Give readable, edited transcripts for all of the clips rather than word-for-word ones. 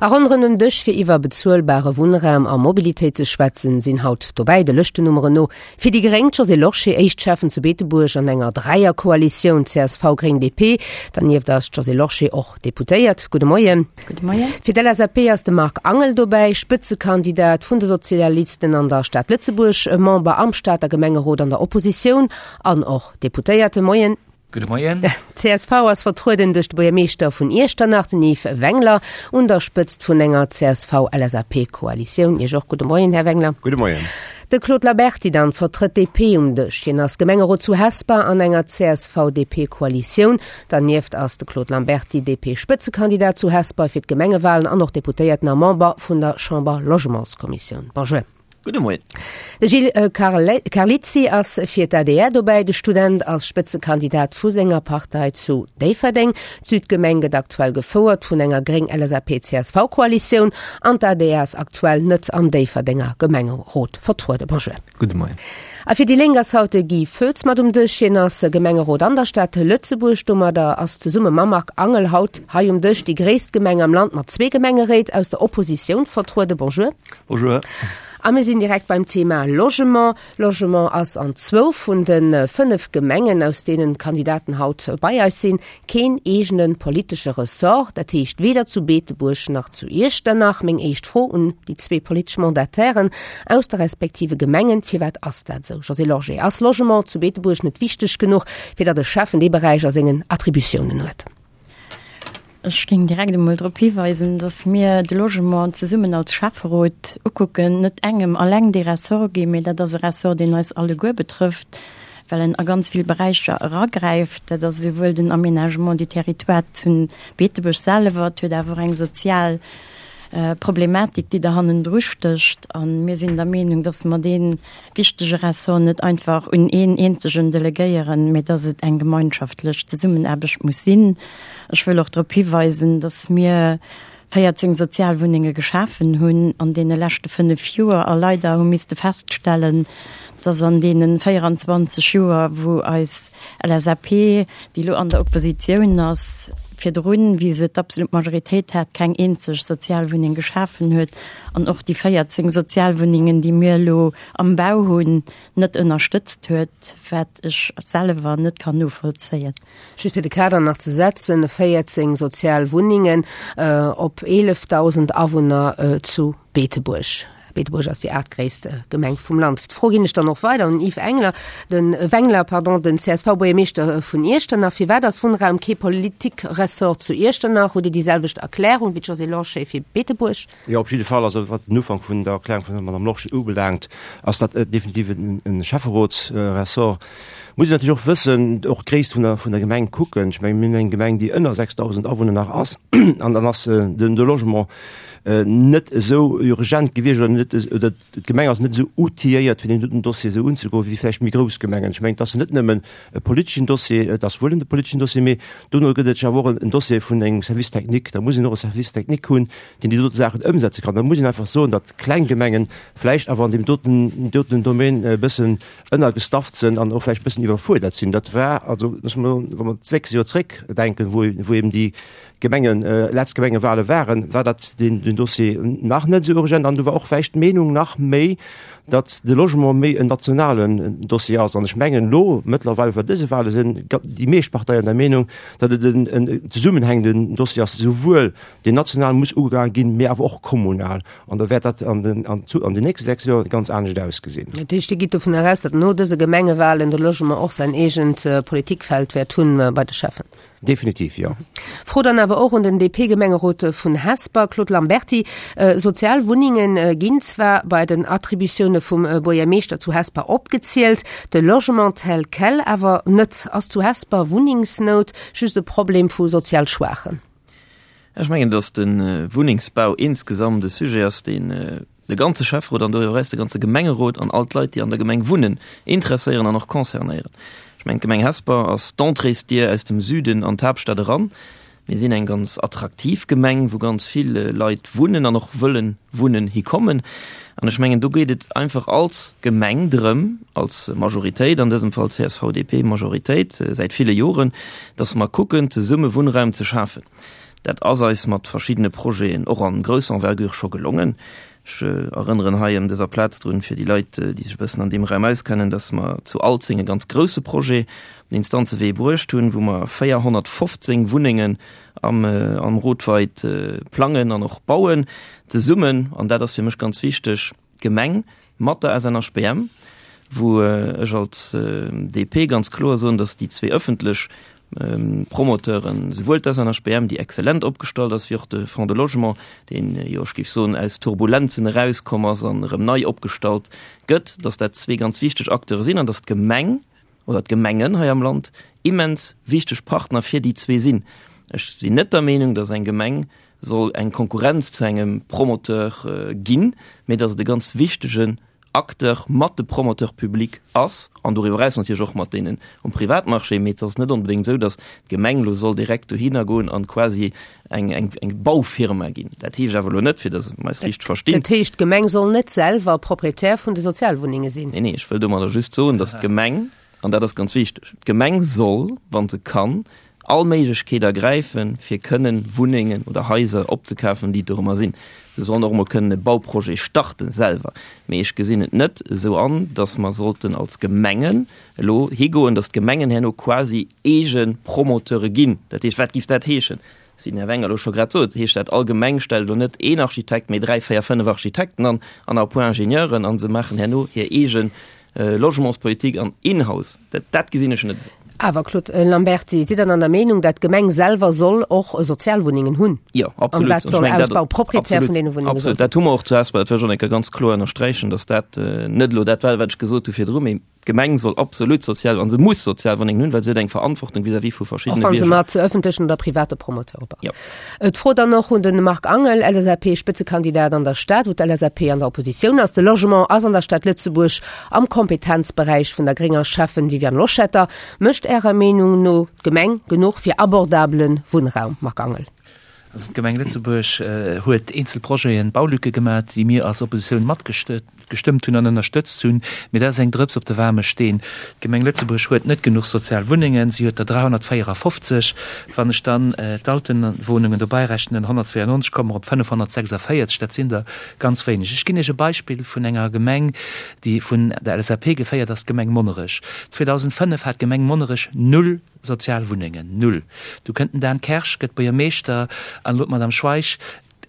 A ronderëm den Dësch fir iwwer bezuelbare Wunnraum a Mobilitéit ze schwätzen, sinn haut dobäi, de Lëschtennummeren no, fir déi Gréng d'Josée Lorsché, éischt Schäffen zu Beetebuerg an enger Dräierkoalitioun CSV-Gréng-DP. Dernieft ass d'Josée Lorsché och Deputéiert. Gudde Moien. Gudde Moien. Fir d'LSAP ass de Marc Angel dobäi, Spëtzekandidat vun de Sozialisten an der Stad Lëtzebuerg, Member am Stater Gemengerot an der Oppositioun an och Deputéierte. Moien. Gudde Moien. D'CSV ass vertrueden duerch de Buergermeeschter vun Iechternach, den Yves Wengler, un der Spëtzt vun enger CSV-LSAP-Koalitioun. Iech och gudde Moien, Här Wengler. Gudde Moien. De Claude Lamberty dann vertrëtt d'DP um Dësch. Hien ass Gemengerot zu Hesper an enger CSV-DP-Koalitioun. Dernieft ass de Claude Lamberty DP-Spëtzekandidat zu Hesper fir d'Gemengewalen an och Deputéierten a Member vun der Chamber-Logementskommissioun. Bonjour. Gudde Moien. De Gilles Carlizzi ass fir d'ADR dobäi. De Student ass Spëtzekandidat vu senger Partei zu Déifferdeng. D'Südgemeng gëtt aktuell gefouert vun enger Gréng-LSAP-CSV-Koalitioun an d'ADR ass aktuell net am Déifferdenger Gemengerot vertrueden. Bonjour. Gudde Moien. A fir déi Lénk ass haut de Guy Foetz mat um Dësch. Hien ass Gemengerot an der Stad Lëtzebuerg. Domadder ass zesumme mam Marc Angel haut hei um Dësch déi gréisst Gemeng am Land mat zwee Gemengeréit aus der Oppositioun vertrueden. Bonjour. Bonjour. A mir sinn direkt beim Thema Logement. Logement ass an zwou vun de 5 Gemengen, aus deenen d'Kandidaten haut bei eis sinn, keen eegene politesche Ressort. Dat heescht weder zu Beetebuerg nach zu Iechternach. Meng éischt Fro un déi zwee politesch Mandatairen aus de respektive Gemengen, Firwat ass dat esou? Josée Lorsché, Ass Logement zu Beetebuerg net wichteg genuch, fir datt e Schäffen dee Beräich a sengen Attributiounen huet? Ech géing direkt emol drop hiweisen, dass mir de Logement zesummen als Schäfferot ukucken, net engem alleng dee Ressort ginn, mee dat ass e Ressort, deen eis alleguer betrëfft, well en a ganz vill Beräicher eragräift. Dat ass esouwuel den Aménagement du territoire zu Beetebuerg selwer, et huet awer och eng sozial Problematik, déi der hannendru stécht. A mir sinn der Meenung, dass mer dee wichtege Ressort net einfach un een eenzegen delegéieren, mee dass et eng gemeinschaftlech Zesummenaarbecht muss sinn. Ech wëll och drop hiweisen, dass mir 14 Sozialwunnenge geschafen hunn an deene leschte fënnef Joer a leider hu misste feststellen, dass an deene 24 Joer, wou eis LSAP, déi elo an der Oppositioun ass, virdrun, wéi se d'absolut Majoritéit hat, keng eenzeg Sozialwunneng geschafen huet an och déi 14 Sozialwunnengen, déi mir elo am Bau hunn, net ënnerstëtzt huet, wat ech selwer net kann novollzéien. Just fir de Kader nach ze setzen, 14 Sozialwunnengen op 11.000 Awunner zu Beetebuerg. Beetebuerg ass déi aachtgréisst Gemeng vum Land. D'Fro ginn ech dann och weider un Yves Engler, den Wengler, pardon, den CSV-Buergermeeschter vun Iechternach. Firwat ass Wunnraum kee Politikressort zu Iechternach? Hutt Dir déi selwecht Erklärung wéi d'Josée Lorsché fir Beetebuerg? Jo, op jidde Fall. Also wat den Ufank vun der Erklärung vun der Madame Lorsché ubelaangt, ass dat definitiv e Schäfferotsressort. Muss een natierlech och wëssen, och d'Gréisst vun der, vun der Gemeng kucken. Ech mengen, mir hunn eng Gemeng, déi ënner 6.000 Awunner nach ass, an dann ass den de Logement net esou urgent gewiescht oder net, oder d'Gemeng ass net esou outilléiert, fir deen doten Dossier esou unzegoen, wéi vläicht méi grouss Gemengen. Ech mengen, et ass net nëmmen e politeschen Dossier, et ass wuel en politeschen Dossier, mee dono gëtt et awer och en Dossier vun engem Service technique. Da muss een och e Service technique hunn, deen déi dote Saachen ëmsetze kann. Da muss een einfach soen, datt kleng Gemengen vläicht awer an deem doten, doten Domaine e bëssen ënnergestafft sinn an och vläicht e bëssen iwwerfuerdert sinn. Dat war also, wa mer 6 Joer zréckdenken, wou, wou eben déi Gemengen, letzt Gemengewale waren, war dat den, den Dossier nach net esou urgent an du war och vläicht d'Meenung nach méi, datt de Logement méi en nationalen Dossier ass. An ech mengen elo mëttlerweil bei dëse Wale sinn déi meescht Parteien der Meenung, datt et en, en zesummenhängenden Dossier ass, esouwuel deen national muss ugegaange ginn, mee awer och kommunal. An da wäert dat an den, an zu, an den nächste 6 Joer ganz anescht ausgesinn. Dat heescht, Dir gitt dovun eraus, datt no dëse Gemengewalen de Logement och säin eegent Politikfeld wäert hunn bei de Schäffen? Definitiv, jo. Fro dann awer och un den DP-Gemengerot vun Hesper, Claude Lamberty. Sozial Wunnenge ginn zwar bei den Attributioune vum Buergermeeschter zu Hesper opgezielt, de Logement tel quel awer net. Ass zu Hesper Wunnengsnout just e Problem vu sozial Schwaachen? Ech mengen, datt de Wunnengsbau insgesamt e Sujet ass, deen de ganze Schäfferot an doriwwer eraus de ganze Gemengerot an all d'Leit, déi an der Gemeng wunnen, interesséieren an och concernéieren. Ech mengen, d'Gemeng Hesper ass d'Entréesdier aus dem Süden an d'Haaptstad eran. Mir sinn eng ganz attraktiv Gemeng, wou ganz vill Leit wunnen an och wëllen wunnen hikommen. An ech mengen, do geet et einfach als Gemeng drëm, als Majoritéit, an dësem Fall CSV-DP-Majoritéit säit ville Joren, dass mer kucken, zesumme Wunnraum ze schafen. Dat ass eis mat verschiddene Projeten och an grousser Envergure scho gelongen. Ech erënneren hei ëm dëser Plaz drun, fir déi Leit, déi sech e bëssen an deem Raum auskennen, dass mer zu Alzeng e ganz grouse Projet op den Instanzewee bruecht hunn, wou mer 415 Wunnengen am, am Rotweid plangen an och bauen, zesummen, an dat ass fir mech ganz wichteg, d'Gemeng mat der SNHBM, wou ech als DP ganz kloer soen, datt déi zwee ëffentlech Promoteuren, souwuel d'SNHBM, déi exzellent opgestallt ass, wéi och de Fonds de Logement, deen, jo, ech géif soen, aus Turbulenzen erauskomm ass an erëm nei opgestallt gëtt, datt dat zwee ganz wichteg Acteure sinn an datt d'Gemeng oder d'Gemengen hei am Land immens wichteg Partner fir déi zwee sinn. Ech sinn net der Meenung, datt eng Gemeng soll eng Konkurrenz zu engem Promoteur ginn, mee datt et e ganz wichtegen Acteur mat de Promoteurs publics ass an doriwwer eraus natierlech och mat deenen um Privatmarché. Mee et ass net onbedéngt esou, datt d'Gemeng elo soll direkt dohinner goen an quasi eng, eng, eng Baufirma ginn. Dat heescht awer elo net, fir datt mer eis richteg verstinn. Dat heescht, d'Gemeng soll net selwer Proprietär vun de Sozialwunnenge sinn? Nee, nee, ech wëll domadder just soen, datt d'Gemeng, An dat ass ganz wichteg, D'Gemeng soll, wa se kann, all Méiglechkeet ergräifen, fir kënnen Wunnengen oder Haiser opzekafen, déi dorëmmer sinn. Se sollen och emol kënnen e Bauprojet starten selwer. Mee ech gesinn et net esou an, dass mer sollten als Gemengen elo higoen, dass d'Gemengen herno quasi eege Promoteure ginn. Dat heescht, wat géif dat heeschen? Wéi den Här Wenger elo scho grad sot, heescht dat, all Gemeng stellt elo net een Architekt, mee dräi, véier, fënnef Architekten an, an à point Ingenieuren, a se maachen herno hir eege Logementspolitik an in-house. Dat, dat gesinn ech net esou. Awer, Claude Lamberty, sidd Der dann der Meenung, dat d'Gemeng selwer soll och Sozialwunnengen hunn? Jo, absolut. An dat soll Ausbau, Proprietär vun deene Wunnenge soll sinn? Absolut. Dat hu mer och zu Hesper, dat wëll ech och eng Kéier ganz kloer ënnersträichen, datt dat net elo dat war, wat ech gesot hu virdru, mee D'Gemeng soll absolut sozial, an se muss Sozialwunnengen hunn, well se huet eng Verantwortung vis-à-vis vu verschiddene Bierger. Och wa se mat ëffentlechen oder private Promoteure baut. Jo. D'Fro dann och un de Marc Angel, LSAP-Spëtzekandidat an der Stad, wou d'LSAP an der Oppositioun ass. De Logement ass an der Stad Lëtzebuerg am Kompetenzberäich vun der grénger Schäffen Viviane Loschetter. Mécht Ärer Meenung no d'Gemeng genuch fir abordabele Wunnraum, Marc Angel? Also d'Gemeng Lëtzebuerg huet eenzel Projeten, Baulücke gemat, déi mir als Oppositioun matgestëmmt hunn an ënnerstëtzt hunn. Mee dat ass eng Drëps op de waarme Steen. D'Gemeng Lëtzebuerg huet net genuch sozial Wunnengen, si huet der 354. Wann ech dann d'Altenwohnungen dobäi rechnen, 192, komme mer op 546. Dat sinn der ganz wéineg. Ech ginn Iech e Beispill vun enger Gemeng, déi vun der LSAP geféiert ass, d'Gemeng Monnerech. 2005 hat d'Gemeng Monnerech null Sozial Wunnengen, null. Du kënnt den Dan Kersch, gëtt Buergermeeschter, an elo d'Madame Schweich.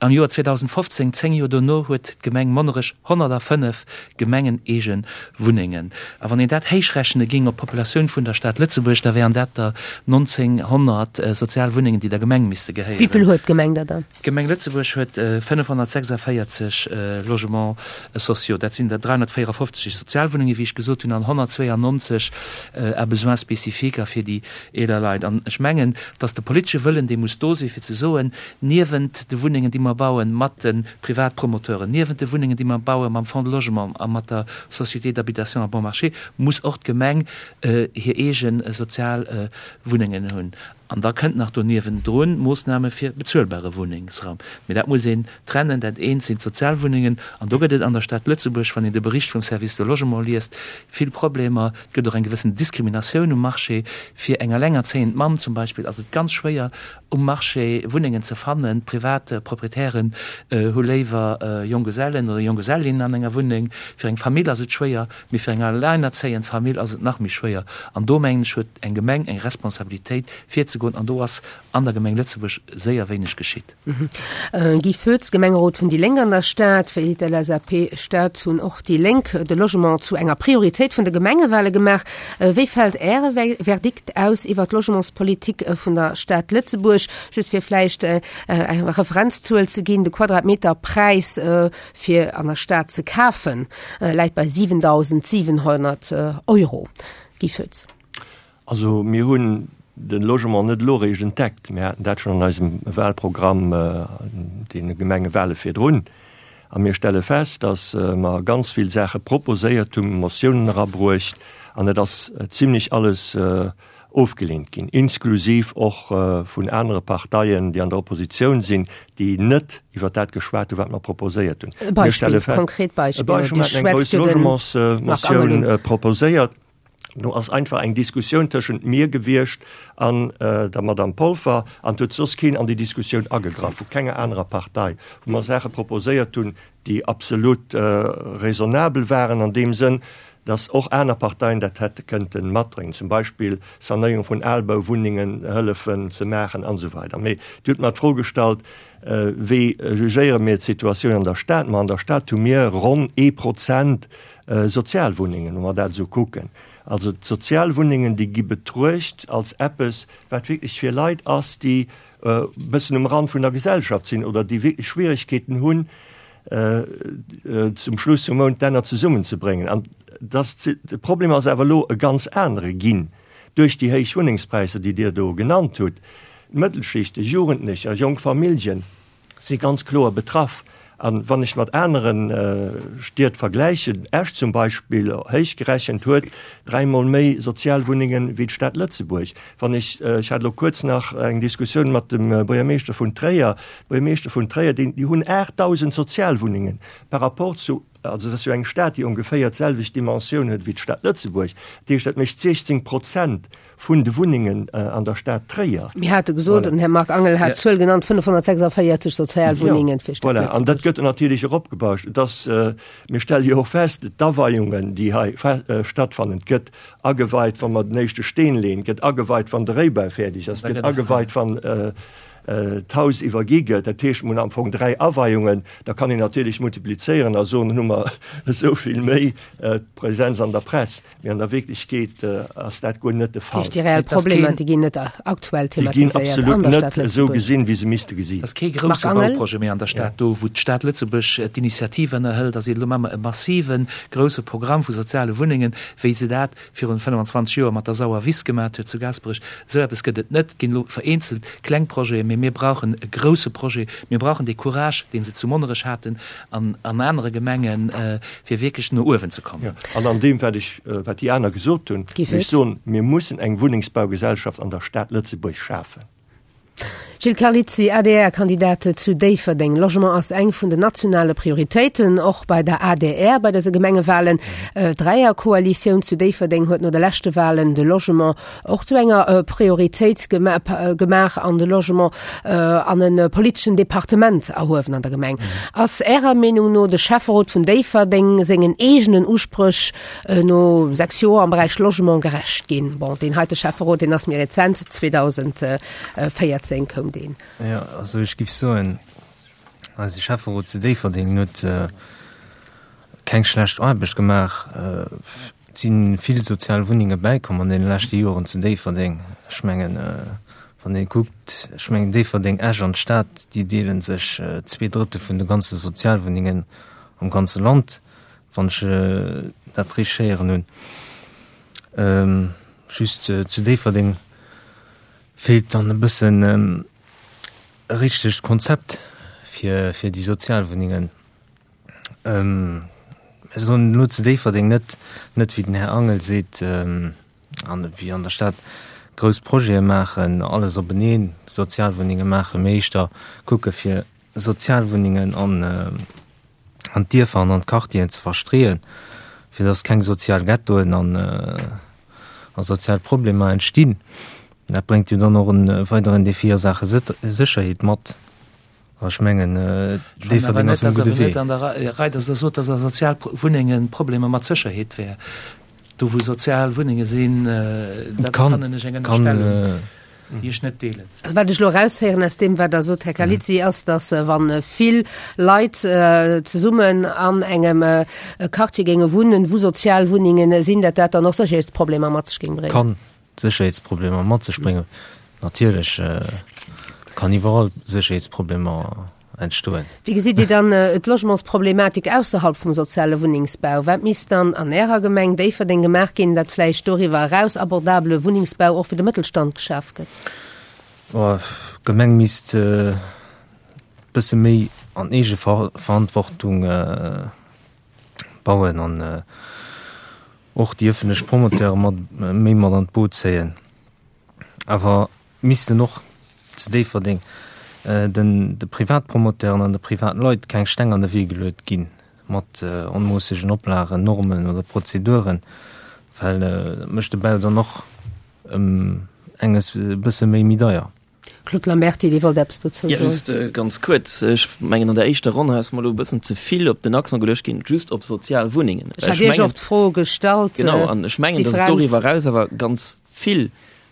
Am Joer 2015, 10 Joer dono, huet d'Gemeng Monnerech 105 gemengeneege Wunnengen. A wann een dat héichrechne géing op d'Populatioun vun der Stad Lëtzebuerg, da wären dat der 1.900 sozial Wunnengen, déi der Gemeng misste gehéieren. Wéi vill huet d'Gemeng der dann? D'Gemeng Lëtzebuerg huet 546 Logements sociaux, dat sinn der 354 Sozialwunnenge wéi ech gesot hunn an 192 à besoins spécifiques a fir déi eeler Leit. An ech mengen, datt de politesche Wëllen, dee muss do sinn, fir ze soen, niewent de Wunnengen, déi mer bauen mat de Privatpromoteuren, niewent de Wunnengen, déi mer baue mam Fonds de Logement a mat der Société d'habitation à bon marché, muss och d'Gemeng hir eege sozial Wunnengen hunn. An da kënnt nach do niewendrun Moossname fir bezuelbare Wunnengsraum. Mee dat muss een trennen. Dat eent sinn d'Sozialwunnengen. An do gëtt et an der Stad Lëtzebuerg, wann een de Bericht vum Service de Logement liest, vill Problemer. Et gëtt och eng gewëssen Diskriminatioun um Marché. Fir eng elengerzéiend Mamm zum Beispill ass et ganz schwéier, um Marché Wunnengen ze fannen. Privat Proprietären hu léiwer Jonggesellen oder Jonggesellinnen an enger Wunneng. Fir eng Famill ass et schwéier. Mee fir eng alleinerzéiend Famill ass et nach méi schwéier. An do, mengen ech, huet eng Gemeng eng Responsabilitéit virzegoen. An do ass an der Gemeng Lëtzebuerg séier wéineg geschitt. Guy Foetz, Gemengerot vun déi Lénk an der Stad. Wéi d'LSAP Stad hunn och déi Lénk de Logement zu enger Prioritéit vun de Gemengewale gemaach. Wéi fält Äre Verdikt aus iwwer d'Logementspolitik vun der Stad Lëtzebuerg? Just fir vläicht eng Referenzzuel ze ginn, de Quadratmeterpräis fir an der Stad ze kafen, läit bei 7.700 Euro. Guy Foetz. Also mir hunn de Logement net elo eréischt entdeckt. Mir haten dat schonn an eisem Wahlprogramm an deene Gemengewale virdrun. A mir stelle fest, datt mer ganz vill Saache proposéiert hunn, Motiounen erabruecht an et ass zimlech alles ofgeleent ginn, inklusiv och vun anere Parteien, déi an der Oppositioun sinn, déi net iwwer dat geschwat hunn, wat mer proposéiert hunn. E Beispill, konkret Beispill. E Beispill, mir haten eng grouss Logementsmotioun proposéiert. Do ass einfach eng Diskussioun tëschent mir gewiescht an der Madame Polfer an et huet soss keen an déi Diskussioun agegraff, vu kenger anerer Partei, wou mer Saache proposéiert hunn, déi absolut raisonnabel waren an deem Sënn, dass och aner Parteien dat hätte kënnte matdréngen, zum Beispill Sanéierung vun Albauwunnengen hëllefen ze maachen an esou weider. Mee Dir hutt mer d'Fro gestallt, Wéi jugéiere mir d'Situatioun an der Stad? Ma an der Stad hu mir ronn ee Prozent Sozialwunnengen, wa mer dat esou kucken. Also d'Sozialwunnengen, déi gi betruecht als eppes, wat wierklech fir Leit ass, déi e bëssen um Rand vun der Gesellschaft sinn oder déi wierklech Schwieregkeeten hunn, zum Schluss vum Mount d'Enner zesummenzebréngen. An dass de Problem ass awer elo e ganz anere ginn duerch déi héich Wunnengspräisser, déi Dir do genannt hutt. D'Mëttelschichten, Jugendlecher, jonk Familljen si ganz kloer betraff. A wann ech mat anere Stied vergläichen, Esch zum Beispill, héich gerechent, huet dräimol méi Sozialwunnenge wéi d'Stad Lëtzebuerg. Wann ech, ech hat elo kuerz nach eng Diskussioun mat dem Buergermeeschter vun Tréier, Buergermeeschter vun Tréier, déi hunn 8.000 Sozialwunnengen par rapport zu, also dat ass jo eng Stad, déi ongeféier d'selwecht Dimensioun huet wéi d'Stad Lëtzebuerg, dat heescht, dat mécht 16 Prozent vun de Wunnengen an der Stad Tréier. Mir hate gesot, den Här Marc Angel hat d'Zuel genannt, 546 Sozialwunnengen fir d'Stad Lëtzebuerg. Voilà, an dat gëtt natierlech eropgebauscht. Et ass, mir stelle jo och fest, d'Aweiungen, déi hei stattfannen, et gëtt ageweit, wa mer den éischte Steen leeën, et gëtt ageweit, wann de Réibau fäerdeg ass, et gëtt ageweit, wann d'Haus iwwergi gëtt. Dat heescht, mir hunn am Fong dräi Aweiungen. Da kann een natierlech multiplizéieren a soen, dann hu mer esou vill méi Präsenz an der Press. Mee an der Wierklechkeet ass dat guer net de Fall. Dat heescht, déi reell Problemer, déi ginn net aktuell thematiséiert an der Stad Lëtzebuerg? Déi ginn absolut net esou gesinn, wéi se misste gesi. Et ass kee grousse Bauprojet méi an der Stad do, wou d'Stad Lëtzebuerg d'Initiative ënnerhëlt a seet, elo maache mer e massive grousse Programm vu soziale Wunnengen, wéi se dat virun 25 Joer mat der Sauer Wiss gemat huet zu Gaasperech. Esou eppes gëtt et net. Et ginn elo vereenzelt kleng Projeten, mee mir brauchen e grousse Projet. Mir brauchen dee Courage, dee se zu Monnerech haten an an anere Gemengen, fir wierklech no uewen ze kommen. Jo, an an deem, wat ech, wat déi aner gesot hunn, wéll ech soen, mir mussen eng Wunnengsbaugesellschaft an der Stad Lëtzebuerg schafen. Gilles Carlizzi, ADR-Kandidat zu Déifferdeng, Logement ass eng vun den nationale Prioritéiten, och bei der adr bei dëse Gemengewahlen. D'Dräierkoalitioun zu Déifferdeng huet no de leschte Wahlen de Logement och zu enger Prioritéit gemaach an de Logement an e politeschen Departement erhuewen an der Gemeng. Ass Ärer Meenung no de Schäfferot vun Déifferdeng sengen eegenen Uspréch no 6 Joer am Beräich Logement gerecht ginn? Bon, deen heite Schäfferot, deen ass méi rezent, 2014 koum deen. Jo, also ech géif soen, eise Schäfferot zu Déifferdeng huet keng schlecht Aarbecht gemaach. Et si vill sozial Wunnenge bäikomm an deene leschte Joren zu Déifferdeng. Ech mengen, wann ee kuckt, ech mengen Déifferdeng, Esch an d'Stad, déi deele sech zweedrëttel vun de ganze Sozialwunnengen am ganze Land, wann ech dat richteg héieren hunn. Just zu Déifferdeng feelt dann e bëssen e richtegt Konzept fir déi Sozialwunnengen. Mir soen elo zu Déifferdeng net, net wéi den Här Angel seet, an wéi an der Stad, grouss Projete maachen, alles openeen, Sozialwunnenge maachen, mee éischter kucke fir Sozialwunnengen an an d'Dierfer an an d'Quartieren ze verstreeën, fir datt keng sozial Ghettoen an a sozial Problemer entstinn. Dat bréngt jo dann och e weideren Defi a Saache Sécherheet mat. Ech mengen, Déifferdeng ass um gudde Wee. An der Rei, datt Der sot, datt a Sozialwunnenge Problemer mat Sécherheet wär. Do wou Sozialwunnenge sinn, da fannen ech eng Ënnerstellung, déi ech net deelen. Also wat ech elo eraushéieren aus deem, wat Der sot, Här Carlizzi, ass, datt wa vill Leit zesummen an engem Quartier géinge wunnen, wou Sozialwunnenge sinn, datt dat dann och Sécherheetsproblemer mat sech géing bréngen. Kann. Sécherheetsproblemer mat sech bréngen. Natierlech kann iwwerall Sécherheetsproblemer entstoen. Wéi gesitt Dir dann d'Logementsproblematik ausserhalb vum soziale Wunnengsbau? Wat misst dann an Ärer Gemeng Déifferdeng gemaach ginn, datt vläicht doriwwer eraus abordabele Wunnengsbau och fir de Mëttelstand geschaf gëtt? D'Gemeng misst e bësse méi an Eegeverantwortung bauen an och déi ëffentlech Promoteure mat méi mat an d'Boot zéien. Awer missten och zu Déifferdeng den de Privatpromoteuren an de Privatleit keng Steng an de Wee geluet ginn mat onmoossegen Oplagen, Normen oder Prozeduren, Well dat mécht de Bau dann och ëm enges e bësse méi méi deier. Claude Lamberty, Dir wollt eppes dozou soen? Jo, just ganz kuerz. Ech mengen, an der éischter Ronn hei ass mer elo e bëssen ze vill op den Accent geluecht ginn, just op sozial Wunnengen. Ech hat Iech och d'Fro gestallt. Genau, an ech mengen, datt et doriwwer eraus awer ganz vill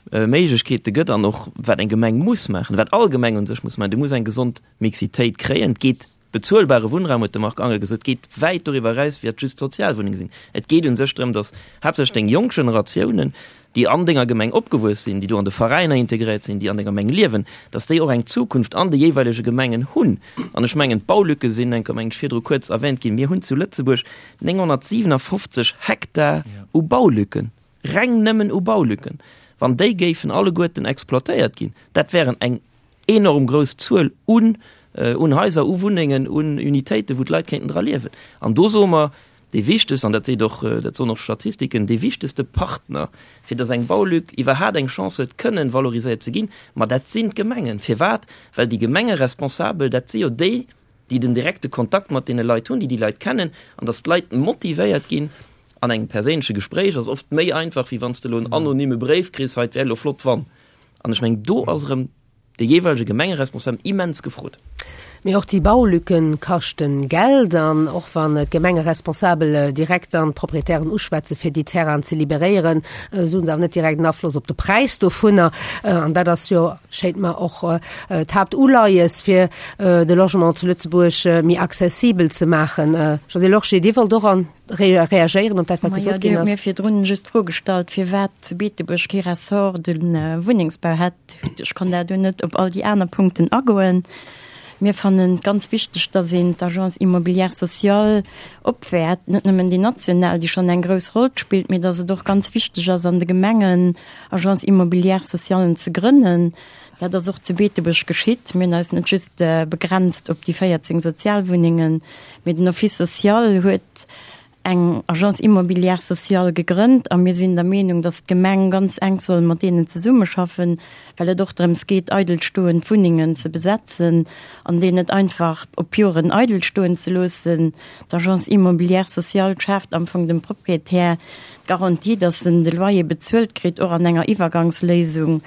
Méiglechkeete gëtt an och wat eng Gemeng muss maachen, wat all Gemeng u sech muss maachen, Du muss eng gesond Mixitéit kréien. Et geet Bezuelbare Wunnraum, huet de Marc Angel gesot, geet wäit doriwwer eraus, wéi et just Sozialwunnenge sinn. Et geet u sech drëm, datt haaptsächlech deng jonk Generatiounen, déi an denger Gemeng opgewuess sinn, déi do an de Veräiner integréiert sinn, déi an denger Gemeng liewen, datt déi och eng Zukunft an de jeeweilege Gemengen hunn. An ech mengen, d'Baulücke sinn enker, mengen ech, virdru kuerz erwähnt ginn. Mir hunn zu Lëtzebuerg 957 Hektar u Baulücken, reng nëmmen u Baulücken. Wann déi géifen alleguerten exploitéiert ginn, dat wären eng enorm grouss Zuel un un Haiser, u Wunnengen, un Unitéiten, wou d'Leit kéinten dra liewen. An do soe mer, dee wichtegst, an dat seet och, dat soen och d'Statistiken, dee wichtegste Partner, fir datt eng Baulück iwwerhaat eng Chance huet, kënnen valoriséiert ze ginn, ma dat sinn d'Gemengen. Firwat? Well déi Gemengeresponsabel, dat si jo déi, déi den direkte Kontakt mat deene Leit hunn, déi déi Leit kennen, an datt d'Leit motivéiert ginn an engem perséinleche Gespréich ass oft méi einfach, wéi wann s de elo en anonyme Bréif kriss, hei, et wär elo flott wann. An ech mengen, do ass erëm de jeeweilege Gemengeresponsablen immens gefrot. Mee och déi Baulücken kaschten Geld. An och wann d'Gemengeresponsabel direkt dann d'Proprietären uschwätzen, fir déi Terrainen ze liberéieren, esou hunn se awer net direkt en Afloss op de Präis dovunner. An dat ass jo, schéint mer, och d'Haaptuleies, fir de Logement zu Lëtzebuerg méi accessibel ze maachen. Josée Lorsché, Dir wollt och an reagéieren op dat, wat gesot ginn ass. Majo, Dir hutt mir virdrun just d'Fro gestallt, firwat zu Beetebuerg kee Ressort de Wunnengsbau hätt. Ech konnt da do net op all déi aner Punkten agoen. Mir fannen et ganz wichteg, dass een d'Agence immobilière sociale opwäert, net nëmmen déi national, déi schonn eng grouss Roll spillt, mee dass et och ganz wichteg ass, an de Gemengen Agences immobilières socialen ze grënnen. Dat ass och zu Beetebuerg geschitt. Mir hunn eis net just begrenzt op déi 14 Sozialwunnengen, mee den Office social huet eng Agence immobilière sociale gegrënnt a mir sinn der Meenung, dass d'Gemeng ganz enk soll mat deenen zesummeschaffen, well et och drëms geet, eidelstoend Wunnengen ze besetzen an déi net einfach op Joren eidel stoen ze loossen. D'Agence immobilière sociale schaaft am Fong dem Proprietär d'Garantie, dass en de Loyer bezuelt kritt, och an enger Iwwergangsléisung,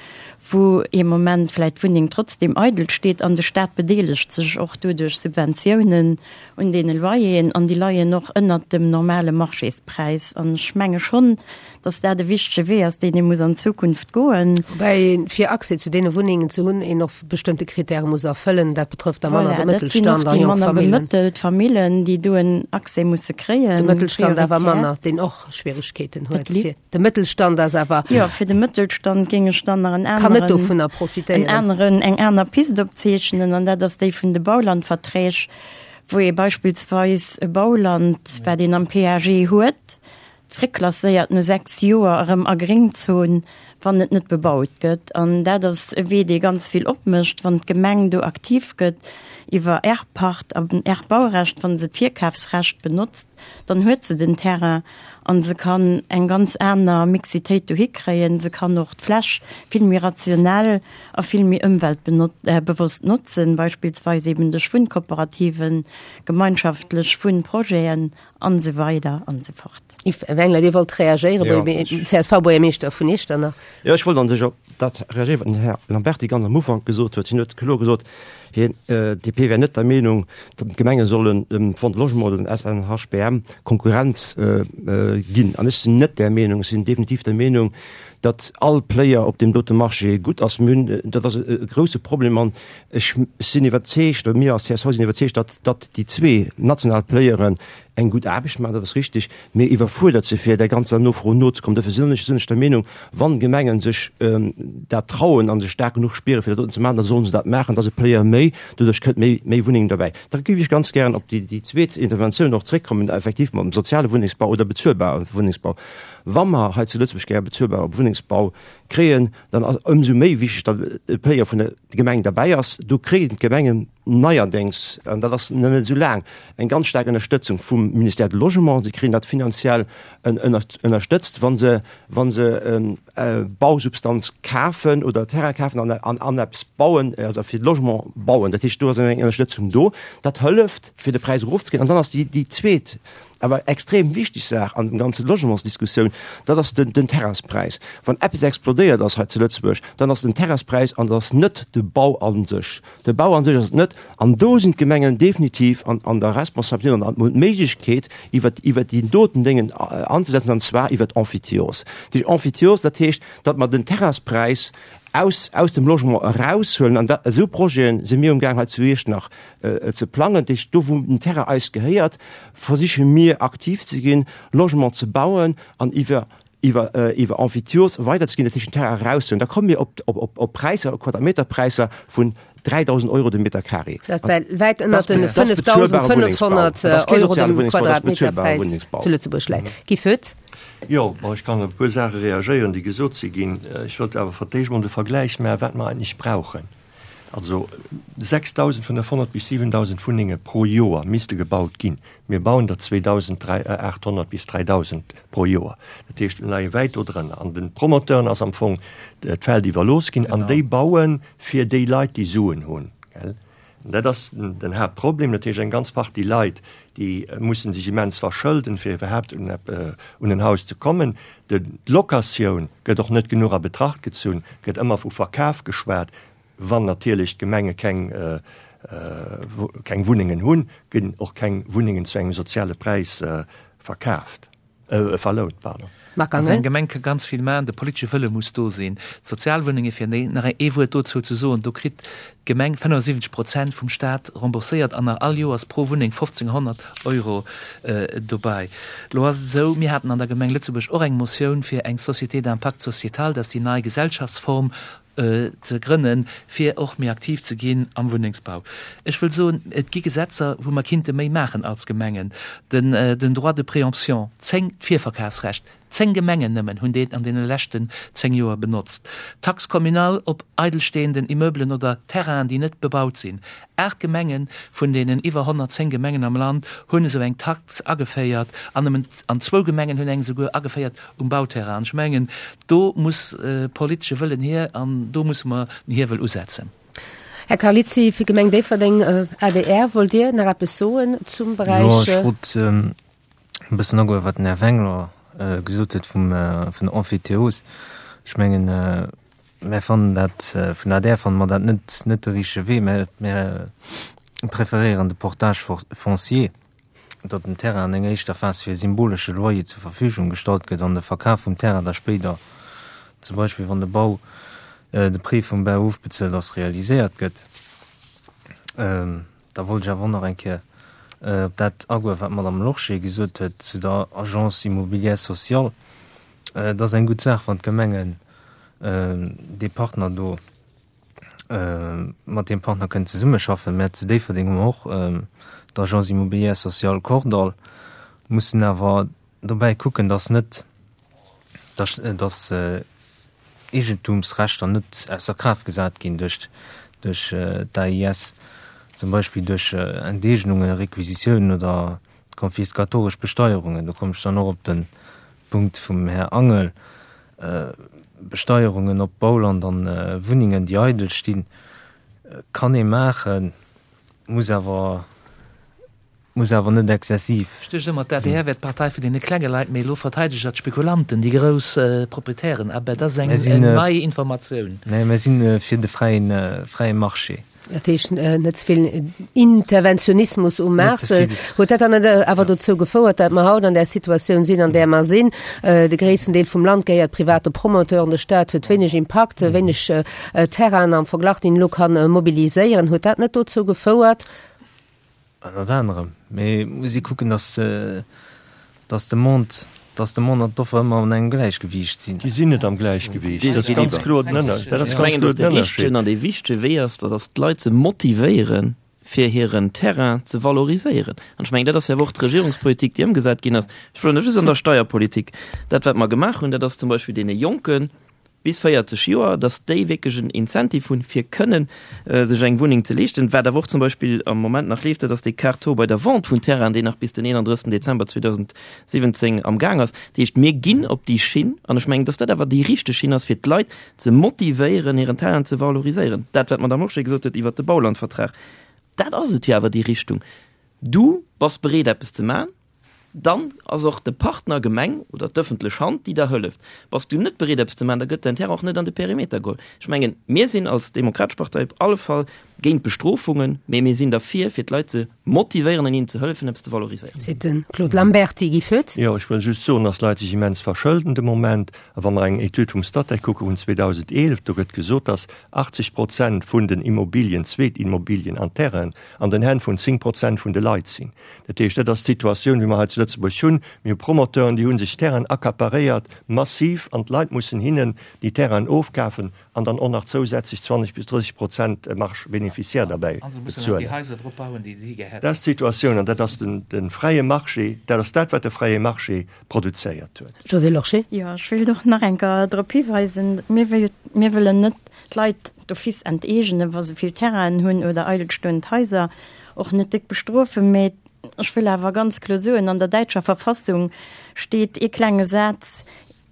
wou ee Moment vläicht d'Wunneng trotzdem eidel steet an de Staat bedeelegt sech och do duerch Subventiounen un deene Loyeren an déi leien och ënnert dem normale Marchéspräis. An ech menge schonn, datt dat e wichtege Wee ass, deen ee muss an Zukunft goen. Woubäi een, fir Accès zu deene Wunnengen ze hunn, een och bestëmmte Kritäre muss erfëllen. Dat betrëfft da manner de Voilà, dat sinn och Mëttelstand a déi jonk manner Famillen. bemëttelt Famillen, déi do en Accès musse kréien, De Mëttelstand awer prioritär. manner, deen och Schwieregkeeten huet. Et li. Fir de Mëttelstand ass awer. Jo, fir de Mëttelstand géing ech dann nach en Kann net aneren, dovunner en profitéieren. aneren, eng aner Pist opzeechnen, an dat ass déi vun de Baulandverträg, wou ee beispillsweis e Bauland, wat een am PAG huet, zréckklasséiert no 6 Joer erëm a Gréngzon, wann et net bebaut gëtt. An dat ass e Wee, dee ganz vill opmécht, wann d'Gemeng do aktiv gëtt iwwer Erbpacht an Erbbaurecht, wa se d'Virkafsrecht benotzt, dann huet se den Terrain a se kann eng ganz aner Mixitéit dohi kréien. Se kann och d'Fläch vill méi rationell a vill méi ëmweltbewosst notzen, beispillsweis eben duerch Wunnkooperativen, gemeinschaftlech Wunnprojeten an esou weider an esou fort. Yves Wengler, Dir wollt reagéieren, CSV-Buergermeeschter vun Iechternach. Jo, ech wollt an sech op dat reagéieren, wat den Här Lamberty ganz am Ufank gesot huet. Hien huet kloer gesot, hien, d'DP wär net der Meenung, datt d'Gemenge sollen dem Fonds de Logement oder dem SNHBM Konkurrenz ginn. An ech sinn net där Meenung. Ech sinn definitiv der Meenung, datt all Player op deem dote Marché gutt ass. Mir hunn, dat ass e grouse Problem an ech sinn iwwerzeegt, oder mir als csv sinn iwwerzeegt, datt, datt déi zwee national Playeren eng gutt Aarbecht maachen, dat ass richtig, mee iwwerfuerdert si fir där ganzer Nofro nozekommen. Dofir sinn ech sinn ech der Meenung, wann Gemengen sech dat trauen a sech staark genuch spieren, fir dat doten ze maachen, da sollen se dat maachen. Dat ass e Player méi, doduerch kënnt méi méi Wunneng derbäi. Da géif ech ganz gären op déi déi zweet Interventioun och zréckkommen, effektiv mam soziale Wunnengsbau oder bezuelbare Wunnengsbau. Wa mer hei zu Lëtzebuerg gäre bezuelbare Wunnengsbau kréien, dann ass ëmsou méi wichteg, datt e Player vun der Gemeng derbäi ass. Do kréien d'Gemengen neierdéngs, an dat ass nach net esou laang, eng ganz staark Ënnerstëtzung vum Ministère du Logement. Si kréien dat finanziell ënnerstëtzt, wa se, wa se Bausubstanz kafen oder Terrain kafen an, an, an eppes bauen, also fir de Logement bauen. Dat heescht, do ass eng Ënnerstëtzung do. Dat hëlleft, fir de Präis erofzekréien. An dann ass déi, déi zweet. awer extrem wichteg Saach an dem ganze Logementsdiskussioun, dat ass den, den Terrainspräis. Wann eppes explodéiert ass hei zu Lëtzebuerg, dann ass den Terrainspräis an dat ass net de Bau a sech. De Bau a sech ass et net. An do sinn d'Gemengen definitiv an, an der Responsabilitéit an hunn d'Méiglechkeet, iwwer, iwwer déi doten Déngen anzesetzen, an zwar iwwer d'Emphytiose. Déi Emphytiose, dat heescht, datt mer den Terrainspräis aus, aus dem Logement eraushuelen. An dat, esou Projete si mir umgaang hei zu Iechternach ze plangen. Dat heescht, do wou den Terrain eis gehéiert, versiche mir aktiv ze ginn, Logement ze bauen an iwwer, iwwer, iwwer Emphytiose weiderzeginn, dat heescht den Terrain eraushuelen. Da komme mir op, op, op Präisser, op Quadrameterpräisser vun 3.000 Euro de Meter carré. Dat wär wäit ënnert den 5.500 Euro dem Quadratmeterpräis zu Lëtzebuerg läit. Guy Foetz. Jo, bon, ech kann op e puer Saache reagéieren, déi gesot si ginn. Ech wëllt awer fir d'éischt emol de Vergläich maachen, wat mer eigentlech brauchen. Also 6.500 bis 7.000 Wunnenge pro Joer misste gebaut ginn. Mir bauen der 2.800 bis 3.000 pro Joer. Dat heescht, mir leie wäit do drënner. An de Promoteuren ass am Fong d'Feld iwwerlooss ginn an déi baue fir déi Leit, déi Suen hunn. Dat ass den Haaptproblem. Dat heescht, eng ganz Partie Leit, déi mussen sech immens verschëlden, fir iwwerhaapt un en Haus ze kommen. D'Locatioun gëtt och net genuch a Betracht gezunn, gëtt ëmmer vu Verkaf geschwat. Wann natierlech d'Gemenge keng keng Wunnengen hunn, ginn och keng Wunnengen zu engem soziale Präis verkaaft. Verlount, pardon. Marc Angel. Also eng Gemeng ka ganz vill maachen, de politesche Wëlle muss do sinn. D'Sozialwunnenge, fir nach ee Wuert dozou ze soen, do kritt d'Gemeng 75 Prozent vum Staat rembourséiert an nach all Joers pro Wunneng 1.500 Euro dobäi. Elo ass et esou, mir haten an der Gemeng Lëtzebuerg och eng Motioun fir eng Société d'impact sociétal, dat ass déi nei Gesellschaftsform, ze grënnen, fir och méi aktiv ze ginn am Wunnengsbau. Ech wëll soen, et gi Gesetzer, wou mer kinnte méi maachen als Gemengen. Den, den Droit de préemption, 10, d'Virverkafsrecht, 10 Gemengen nëmmen hunn deen an deene leschten 10 Joer benotzt. D'Taxe communale op eidelstehenden Immeubelen oder Terrainen, déi net bebaut sinn, 8 Gemengen vun deenen iwwer 110 Gemengen am Land hunn esou eng Tax ageféiert an nëmmen, an zwou Gemengen hunn eng esouguer ageféiert um Bauterrain. An ech mengen, do muss politesche Wëllen hier an do musse mer den Hiewel usetzen. Här Carlizzi, fir d'Gemeng Déifferdeng, adr, wollt Dir nach eppes soen zum Beräich? Jo, ech wollt e bëssen agoen, wat den Här Wengler gesot huet vum, vun der Emphytéose. Ech mengen, mär fannen dat, vun der adr fanne mer dat net, net de richtege Wee. Mär, mär preferéieren de Portage foncier. datt den Terrain an enger éischter Phas fir e symbolesche Loyer zur Verfügung gestallt gëtt an de Verkaf vum Terrain da spéider, zum Beispill wann de Bau, de Prêt vum Bau ofbezuelt ass, realiséiert gëtt. Da wollt ech awer och nach eng Kéier op dat agoen, wat d'Madame Lorsché gesot huet zu der Agence immobilière sociale. Et ass eng gutt Saach, wann d'Gemengen dee Partner do, mat deem Partner kënnen zesummeschaffen. Mä zu Déifferdeng hu mer och d'Agence immobilière sociale Kordall, mussen awer dobäi kucken, dass net, dass, dass Eegentumsrechter net ausser Kraaft gesat ginn duerch, duerch d'AIS, zum Beispill duerch Enteegnungen, Requisitiounen oder konfiskatoresch Besteierungen. Do kommen ech dann och op de Punkt vum Här Angel. Besteierungen op Bauland an Wunnengen, déi eidel stinn, kann ee maachen, muss awer, muss awer net exzessiv Ech duecht ëmmer, d'ADR wär d'Partei vun deene klenge Leit, mee elo verteidegt Der d'Spekulanten, déi grouss Proprietären. Ah ben, dat ass eng nei Informatioun. Nee, mir si fir de fräien, fräie Marché. Dat heescht net ze vill Interventionismus um Maart. Huet dat dann net awer dozou gefouert, datt mer haut an där Situatioun sinn, an där mer sinn? De gréissten Deel vum Land gehéiert private Promoteuren, de Staat huet wéineg Impakt, wéineg Terrainen am Verglach, déi en elo kann mobiliséieren. Huet dat net dozou gefouert? Ënnert anerem. Mee et muss ee kucken, datt, datt de Mond, datt de Mond an d'Offer ëmmer an engem Gläichgewiicht sinn. Déi sinn net am Gläichgewiicht. Dat ass ganz kloer den Ënner, dat ass ganz kloer den Ënnerscheed. Ech mengen, datt de richtegen an dee wichtege Wee ass, dat ass d'Leit ze motivéieren, fir hiren Terrain ze valoriséieren. An ech mengen, dat ass jo awer och d'Regierungspolitik, déi ëmgesat ginn ass. Ech wëll net just an der Steierpolitik. Dat, wat mer gemaach hunn, dat ass zum Beispill deene Jonken, bis 40 Joer, dass déi wierklech en Incentive hunn, fir kënnen sech eng Wunneng ze leeschten. Wat awer och zum Beispill am Moment nach leeft, dat ass dee Quart taux bei der Vente vun Terrainen, deen nach bis den 31. Dezember 2017 am Gaang ass. Dat heescht, mir ginn op déi Schinn, an ech mengen, dass dat awer déi richteg Schinn ass, fir d'Leit ze motivéieren, hiren Terrain ze valoriséieren. Dat, wat d'Madame Lorsché gesot huet iwwert de Baulandvertrag, dat ass et jo awer, déi Richtung. Du bass bereet, eppes ze maachen. Dann ass och de Partner Gemeng oder d'ëffentlech Hand, déi der hëlleft. Bass du net bereet eppes ze maachen, da gëtt däin Terrain och net an de Perimeter geholl. Ech mengen, mir sinn als Demokratesch Partei op alle Fall géint Bestrofungen, mee mir sinn derfir, fir d'Leit ze motivéieren an hinnen ze hëllefen, eppes ze valoriséieren. Seet de Claude Lamberty. Guy Foetz. Jo, ech wëll just soen, dass d'Leit sech immens verschëlden de Moment. A wa mer eng Etüd vum Statec kucke vun 2011, do gëtt gesot, dass 80 Prozent vun den Immobilien, Zweetimmobilien an Terrainen an den Hänn vun 10 Prozent vun de Leit sinn. Dat heescht, dat ass d'Situatioun, wéi mer hei zu Lëtzebuerg hunn. Mir hu Promoteuren, déi hu sech Terrainen accaparéiert, massiv, an d'Leit mussen hinnen déi Terrainen ofkafen an dann och nach zousätzlech 20 bis 30 Prozent Marge bénéficiaire derbäi bezuelen. Dat ass d'Situatioun an dat ass de fräie Marché, dat ass dat, wat de fräie Marché produzéiert huet. Josée Lorsché. Jo, ech wéilt och nach eng Kéier drop hiweisen, mir wëllen net d'Leit d'office enteegenen, wa se vill Terrainen hunn oder eidelstoend Haiser. Och net déck bestrofen, mä ech wëll awer ganz kloer soen, an der däitscher Verfassung steet ee klenge Saz,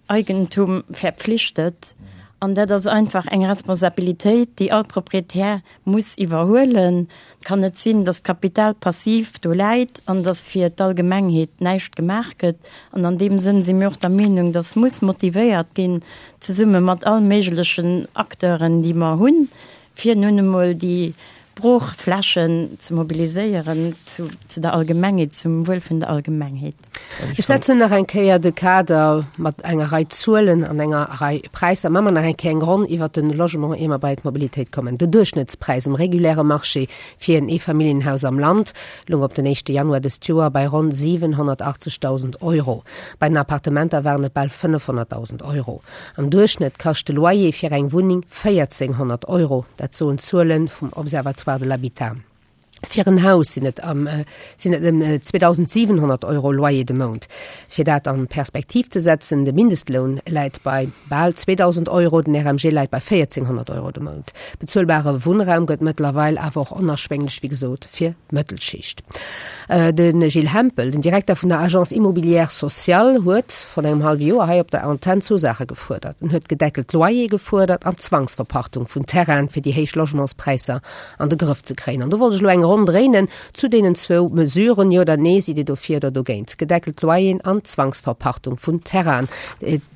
Eigentum verpflichtet. An dat ass einfach eng Responsabilitéit, déi all Proprietär muss iwwerhuelen. Et kann net sinn, datt d'Kapital passiv do läit an datt fir d'Allgemengheet näischt gemaach gëtt. An an deem Sënn si mir och der Meenung, datt muss motivéiert ginn, zesumme mat all méiglechen Acteuren, déi mer hunn, fir nun emol déi Broochflächen ze mobiliséieren zu der Allgemengheet, zum Wuel vun der Allgemengheet. Ech setzen nach eng Kéier de Kader mat enger Rei Zuelen an enger Rei Präisser. Maache mer nach eng Kéier eng Ronn iwwert de Logement, ier mer bei d'Mobilitéit kommen. Den Duerchschnëttspräis um reguläre Marché fir en Eefamilljenhaus am Land loung op den éischte Januar dëst Joer bei ronn 780.000 Euro. Bei den Appartementer waren et bal 500.000 Euro. Am Duerchschnëtt kascht de Loyer fir eng Wunneng 1.400 Euro, dat soen d'Zuele vum Observatoire de l'habitat. Fir en Haus sinn et am sinn et ëm 2.700 Euro Loyer de Mount. Fir dat an Perspektiv ze setzen, de Mindestloun läit bei bal 2.000 Euro, den RMG läit bei 1.400 Euro de Mount. Bezuelbare Wunnraum gëtt mëttlerweil awer och onerschwénglech, wéi gesot, fir d'Mëttelschicht. De Gilles Hempel, den Direkter vun der Agence Immobilière Sociale, huet vrun engem hallwe Joer hei op der Antenn zwou Saache gefuerdert. En huet gedeckelt Loyere gefuerdert an d'Zwangsverpachtung vun Terrainen, fir déi héich Logementspräisser an de Grëff ze kréien. An do wollt ech elo eng Ronn dréinen zu deenen zwou Mesuren. Jo oder nee, sidd Dir dofir oder dogéint? Gedeckelt Loyeren an d'Zwangsverpachtung vun Terrainen.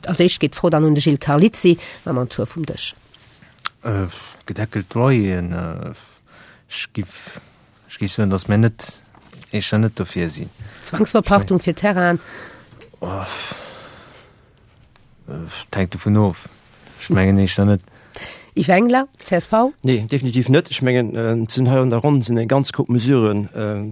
Als éischt geet d'Fro dann un de Gilles Carlizzi mam en Tour vum Dësch. Gedeckelt Loyeren, ech giff Ech géif soen, datt mir net, éischter net dofir sinn. Zwangsverpachtung fir Terrainen? Et hänkt dovun of. Ech mengen éischter net. Yves Engler, csv. Nee, definitiv net. Ech mengen, et sinn hei an der Ronn sinn eng ganz Koup Mesurë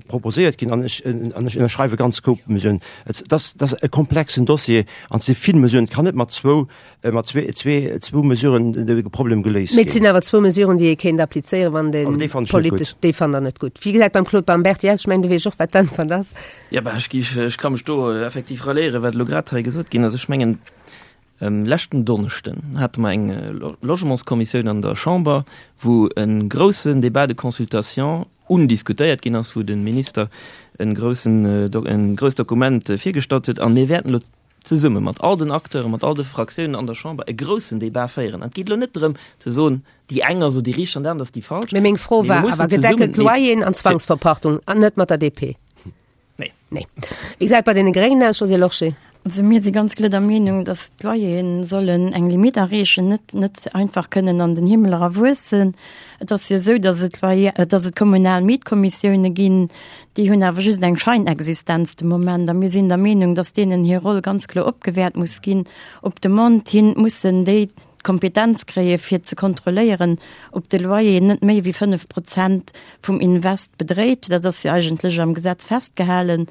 proposéiert ginn an ech an ech ënnerschreiwe ganz Koup Mesuren. Et ass, dat ass e komplexen Dossier an et si vill Mesuren. Et kann net mat zwou Mat zwee, zwee, zwou Mesuren de Problem geléist Mee et sinn awer zwou Mesuren, déi ee kéint applizéieren, wann de politesch. Déi fannt Der net gutt. Wéi gesäit beim Claude Bamberti aus? Ech mengen, du weess och, wat d'Äntwert ass. Jo, bah, ech géif, ech ka mech do effektiv ralliéieren, wat elo grad hei gesot ginn ass. Ech mengen, leschten Donneschden hate mer eng Logementskommissioun an der Chamber, wou e groussen Débat de consultation undiskutéiert ginn ass, wou de Minister e groussen, e grousst Dokument virgestallt huet. A mir wäerten elo zesumme mat all den Acteuren, mat all de Fraktiounen an der Chamber e groussen Débat féieren. An et geet elo net drëm ze soen, déi eng ass elo déi richteg an déi aner ass déi falsch. Mee meng Fro war awer, gedeckelt Loyeren an Zwangsverpachtung, an net mat der DP. Nee. Nee. Wéi gesäit et bei deene Gréngen aus, Josée Lorsché? Also mir si ganz kloer der Meenung, datt d'Loyere sollen eng Limite erreechen, net, net einfach kënnen an den Himmel era wuessen. Et ass jo esou, datt et Loyer, datt et kommunal Mietkommissioune ginn, Déi hunn awer just eng Scheinexistenz de Moment a mir sinn der Meenung, dass deenen hir Roll ganz kloer opgewäert muss ginn. Op Demande hin mussen déi d'Kompetenz kréie fir ze kontrolléieren, ob de Loyer net méi wéi 5 Prozent vum Invest bedréit. Dat ass jo eigentlech am Gesetz festgehalen.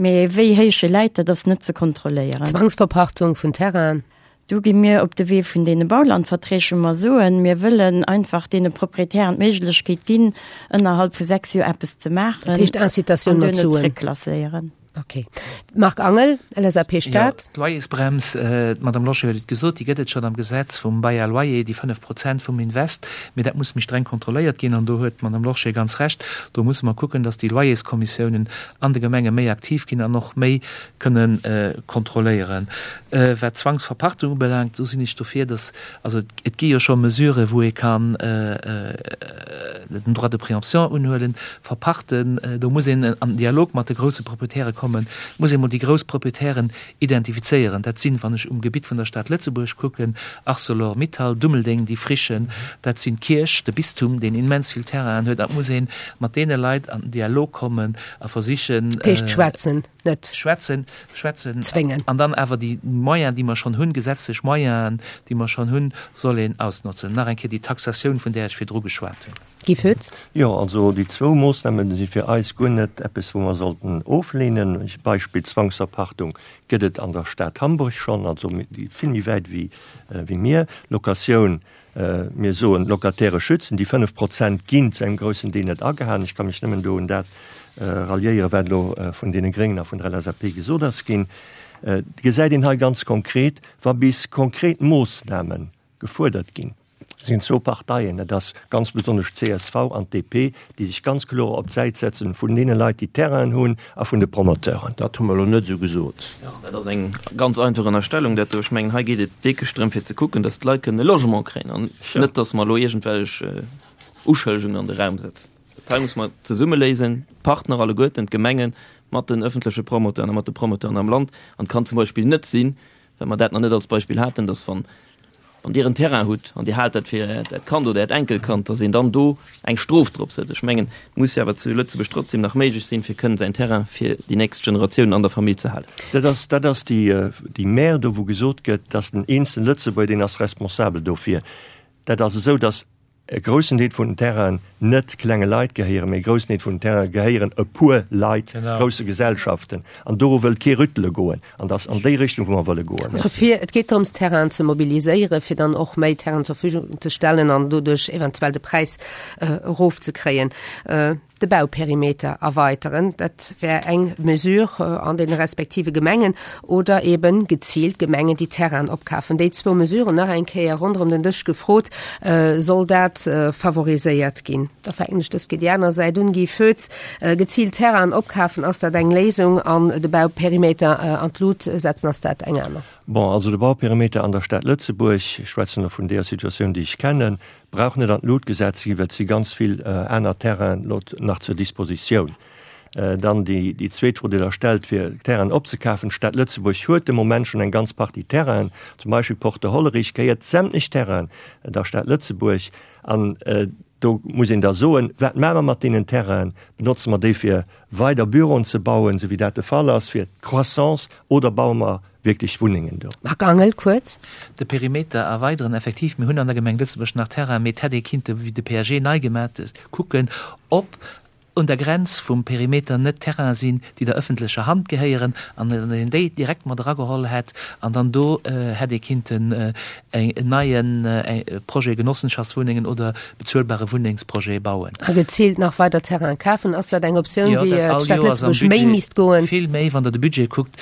Mä wéi héich e läit, dat ass net ze kontrolléieren. Zwangsverpachtung vun Terrainen. Do gi mir op de Wee vun deene Baulandverträg, wou mer soen, mir wëllen einfach deene Proprietären d'Méiglechkeet ginn, ënnerhalb vu 6 Joer eppes ze maachen. Dat heescht Incitatioun mat Suen. An duerno zréckklasséieren. Okay. Marc Angel, LSAP Stad. Jo, d'Loyersbrems, d'Madame Lorsché huet et gesot, déi gëtt et schonn am Gesetz vum Bail à loyer, déi 5 Prozent vum Invest. Mee dat muss méi streng kontrolléiert ginn. An do huet d'Madame Lorsché ganz Recht, do musse mer kucken, dass déi Loyerskommissiounen an de Gemenge méi aktiv ginn an och méi kënnen kontrolléieren. Wat d'Zwangsverpachtung ubelaangt, esou sinn ech dofir, dass, also et gi jo scho Mesuren, wou ee kann den Droit de préemption unhuelen, verpachten. Do muss een an den Dialog mat de grousse Proprietäre kommen. kommen. Et muss ee mol déi grouss Proprietären identifizéieren. Dat sinn, wann ech um Gebitt vun der Stad Lëtzebuerg kucken, Arcelor Mittal, Dummeldeng, déi Frichen, dat sinn d'Kierch, de Bistum, deen immens vill Terrainen huet. An et muss ee mat deene Leit an den Dialog kommen a versichen. Dat heescht schwätzen, net. Schwätzen, schwätzen. Zwéngen. An dann awer déi Moyens, déi mer schonn hunn, gesetzlech Moyenen, déi mer schonn hunn, soll een ausnotzen. Nach eng Kéier déi Taxatioun, vun där ech virdru geschwat hunn. Guy Foetz. Jo, also déi zwou Moossname si fir eis guer net eppes, wou mer sollten ofleenen. Beispill Zwangsverpachtung gëtt et an der Stad Hamburg schonn, also vill méi wäit wéi mir. Locatioun, mir soen d'Locataire schützen, déi 5 Prozent ginn zu engem groussen Deel net agehalen. Ech ka mech nëmmen do un dat ralliéieren, wat elo vun deene Gréngen a vun der LSAP gesot ass ginn. Et gesäit een hei ganz konkret, wa bis konkret Moossname gefuerdert ginn, sinn zwou Parteien, dat ass ganz besonnesch d'CSV an d'DP, déi sech ganz kloer op d'Säit setzen vun deene Leit, déi Terrainen hunn a vun de Promoteuren. Dat hu mer elo net esou gesot. Jo, dat ass eng ganz einfach Ënnerstellung, dat do. Ech mengen, hei geet et wierklech drëm, fir ze kucken, datt d'Leit kënnen e Logement kréien an net, datt mer elo iergendwellech Uschëllegungen an de Raum setzen. Dat hei muss mer zesumme léisen, d'Partner alleguerten, d'Gemengen mat den ëffentleche Promoteuren a mat de Promoteuren am Land. An et kann zum Beispill net sinn, well mer dat nach net als Beispill haten, dass wann, wann Dir en Terrain hutt an Dir haalt dat fir Äert Kand oder Äert Enkelkand, dass een dann do eng Strof drop setzt. Ech mengen, et muss jo awer zu Lëtzebuerg trotzdem nach méiglech sinn, fir kënnen säin Terrain fir déi nächst Generatiounen an der Famill ze halen. Dat ass, dat ass déi, déi Mär do, wou gesot gëtt, dass den eenzelen Lëtzebuerger, deen ass responsabel dofir. Dat ass esou, dass E groussen Deel vun den Terrainen net klenge Leit gehéieren, mee e groussen Deel vun den Terrainen gehéieren e puer Leit, grousse Gesellschaften. An doru wëllt kee rüttele goen. An dat ass an déi Richtung, wou mer wëlle goen. Also fir, et geet drëms, Terrainen ze mobiliséieren, fir dann och méi Terrainen zur Verfügung ze stellen an doduerch eventuell de Präis erofzekréien. De Bauperimeter erweiteren, dat wär eng Mesure an deene respektive Gemengen, oder eben geziilt Gemengen, déi Terrainen opkafen. Déi zwou Mesuren nach eng Kéier ronderëm den Dësch gefrot, Soll dat favoriséiert ginn? Da fänken ech dës Kéier déi aner Säit un. Guy Foetz, Geziilt Terrainen opkafen, ass dat eng Léisung? An de Bauperimeter an d'Lut setzen, ass dat eng aner? Bon, also de Bauperimeter an der Stad Lëtzebuerg, ech schwätzen elo vun deeër Situatioun, déi ech kennen, brauch net an d'Lut gesat ze ginn, well et si ganz vill aner Terrainen elo nach zur Dispositioun. Dann déi zweet Fro, déi Der stellt, fir Terrainen opzekafen. D'Stad Lëtzebuerg huet de Moment schonn eng ganz Partie Terrainen, zum Beispill Porte Hollerich gehéiert sämtlech Terrainen der Stad Lëtzebuerg. An do muss een da soen, Wat maache mer mat deenen Terrainen? Benotze mer déi fir weider Büroen ze bauen, esou wéi dat de Fall ass, fir d'Croissance, oder baue mer wierklech Wunnengen do? Marc Angel, kuerz. De Perimeter erweideren, effektiv, mir hunn an der Gemeng Lëtzebuerg nach Terrain, mee et hätt ee kinnte, wéi de PAG nei gemat ass, kucken, ob un der Grenz vum Perimeter net Terrainen sinn, déi der ëffentlecher Hand gehéieren, an datt een déi direkt mat erageholl hätt an dann do hätt ee kinnten en neie Projet Genossenschaftswunnengen oder bezuelbare Wunnengsprojet bauen. A geziilt nach weider Terrainen kafen, ass dat eng Optioun, déi d'Stad Lëtzebuerg méi misst goen? Vill méi, wann Der de Budget kuckt,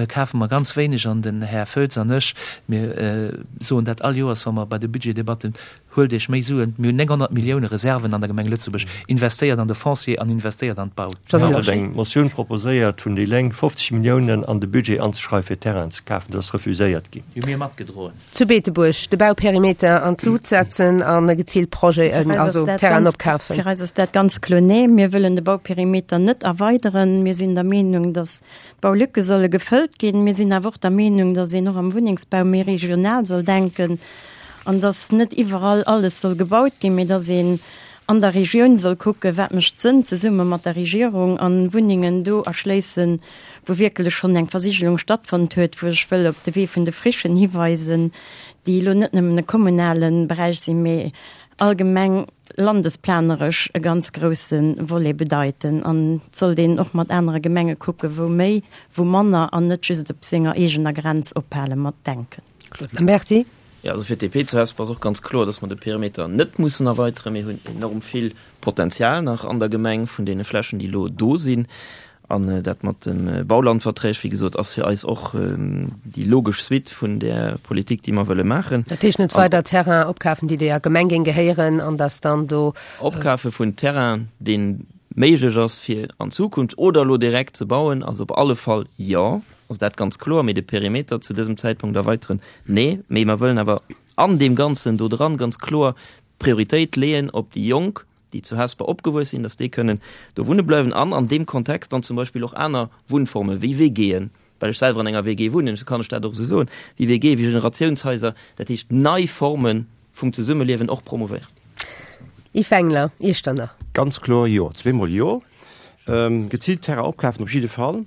kafe mer ganz wéineg an den Här Foetz an ech, mir soen dat all Joers, wa mer bei de Budgetdebatten, Huelt Iech méi Suen, mir hunn 900 Millioune Reserven an der Gemeng Lëtzebuerg, investéiert an de Foncier an investéiert an d'Bau. Mir haten eng Motioun proposéiert vun déi Lénk, 50 Milliounen an de Budget anzeschreiwen, fir Terrainen ze kafen. Dat ass refuséiert ginn. Déi hu mir matgedroen. Zu Beetebuerg de Bauperimeter an d'Lut setzen a geziilt Projeten, also Terrainen opkafen. Fir eis ass dat ganz kloer, Nee, mir wëllen de Bauperimeter net erweideren. Mir sinn der Meenung, datt d'Baulücke solle gefëllt ginn. Mir sinn awer och der Meenung, datt een och am Wunnengsbau méi regional soll denken an datt net iwwerall alles soll gebaut ginn, mee datt een an der Regioun soll kucken, wat mécht Sënn zesumme mat der Regierung an Wunnengen do erschléissen, wou wierkelech schonn eng Versigelung stattfonnt huet, wou ech wëll op de Wee vun de Frichen hiweisen, déi elo net nëmmen e kommunale Beräich sinn, mee allgemeng landesplaneresch e ganz grouse Volet bedeiten. An et sollt een och mat anere Gemenge kucken, wou méi, wou manner, an net just op senger eegener Grenz ophale mat denken. Claude Lamberty. Jo, also fir d'DP zu Hesper ass och ganz kloer, dass mer de Perimeter net mussen erweiteren. Mir hunn enorm vill Potenzial nach an der Gemeng vun deene Flächen, déi elo do sinn. An dat mat de Baulandverträg, wéi gesot, ass fir eis och déi logesch Suite vun där Politik, déi mer wëlle maachen. Dat heescht net weider Terrain opkafen, déi der Gemeng géing gehéieren, an dass dann do. Opkafe vun Terrain, dee méiglech ass fir an Zukunft oder elo direkt ze bauen, ass op alle Fall jo, ass dat ganz kloer. Mee de Perimeter zu dësem Zäitpunkt erweiteren, nee. Mee mer wëllen awer an deem Ganzen do dran ganz kloer d'Prioritéit leeën op déi Jonk. déi zu Hesper opgewuess sinn, dass déi kënnen do wunne bleiwen an an deem Kontext dann zum Beispill och aner Wunnformen, wéi WGen, well ech selwer an enger WG wunnen, esou kann ech dat och esou soen, wéi WG, wéi Generatiounshaiser, dat heescht nei Forme vum Zesummeliewen och promouvéieren. Yves Wengler, Iechternach. Ganz kloer Jo, zweemol Jo. Geziilt Terrain opkafen op jidde Fall.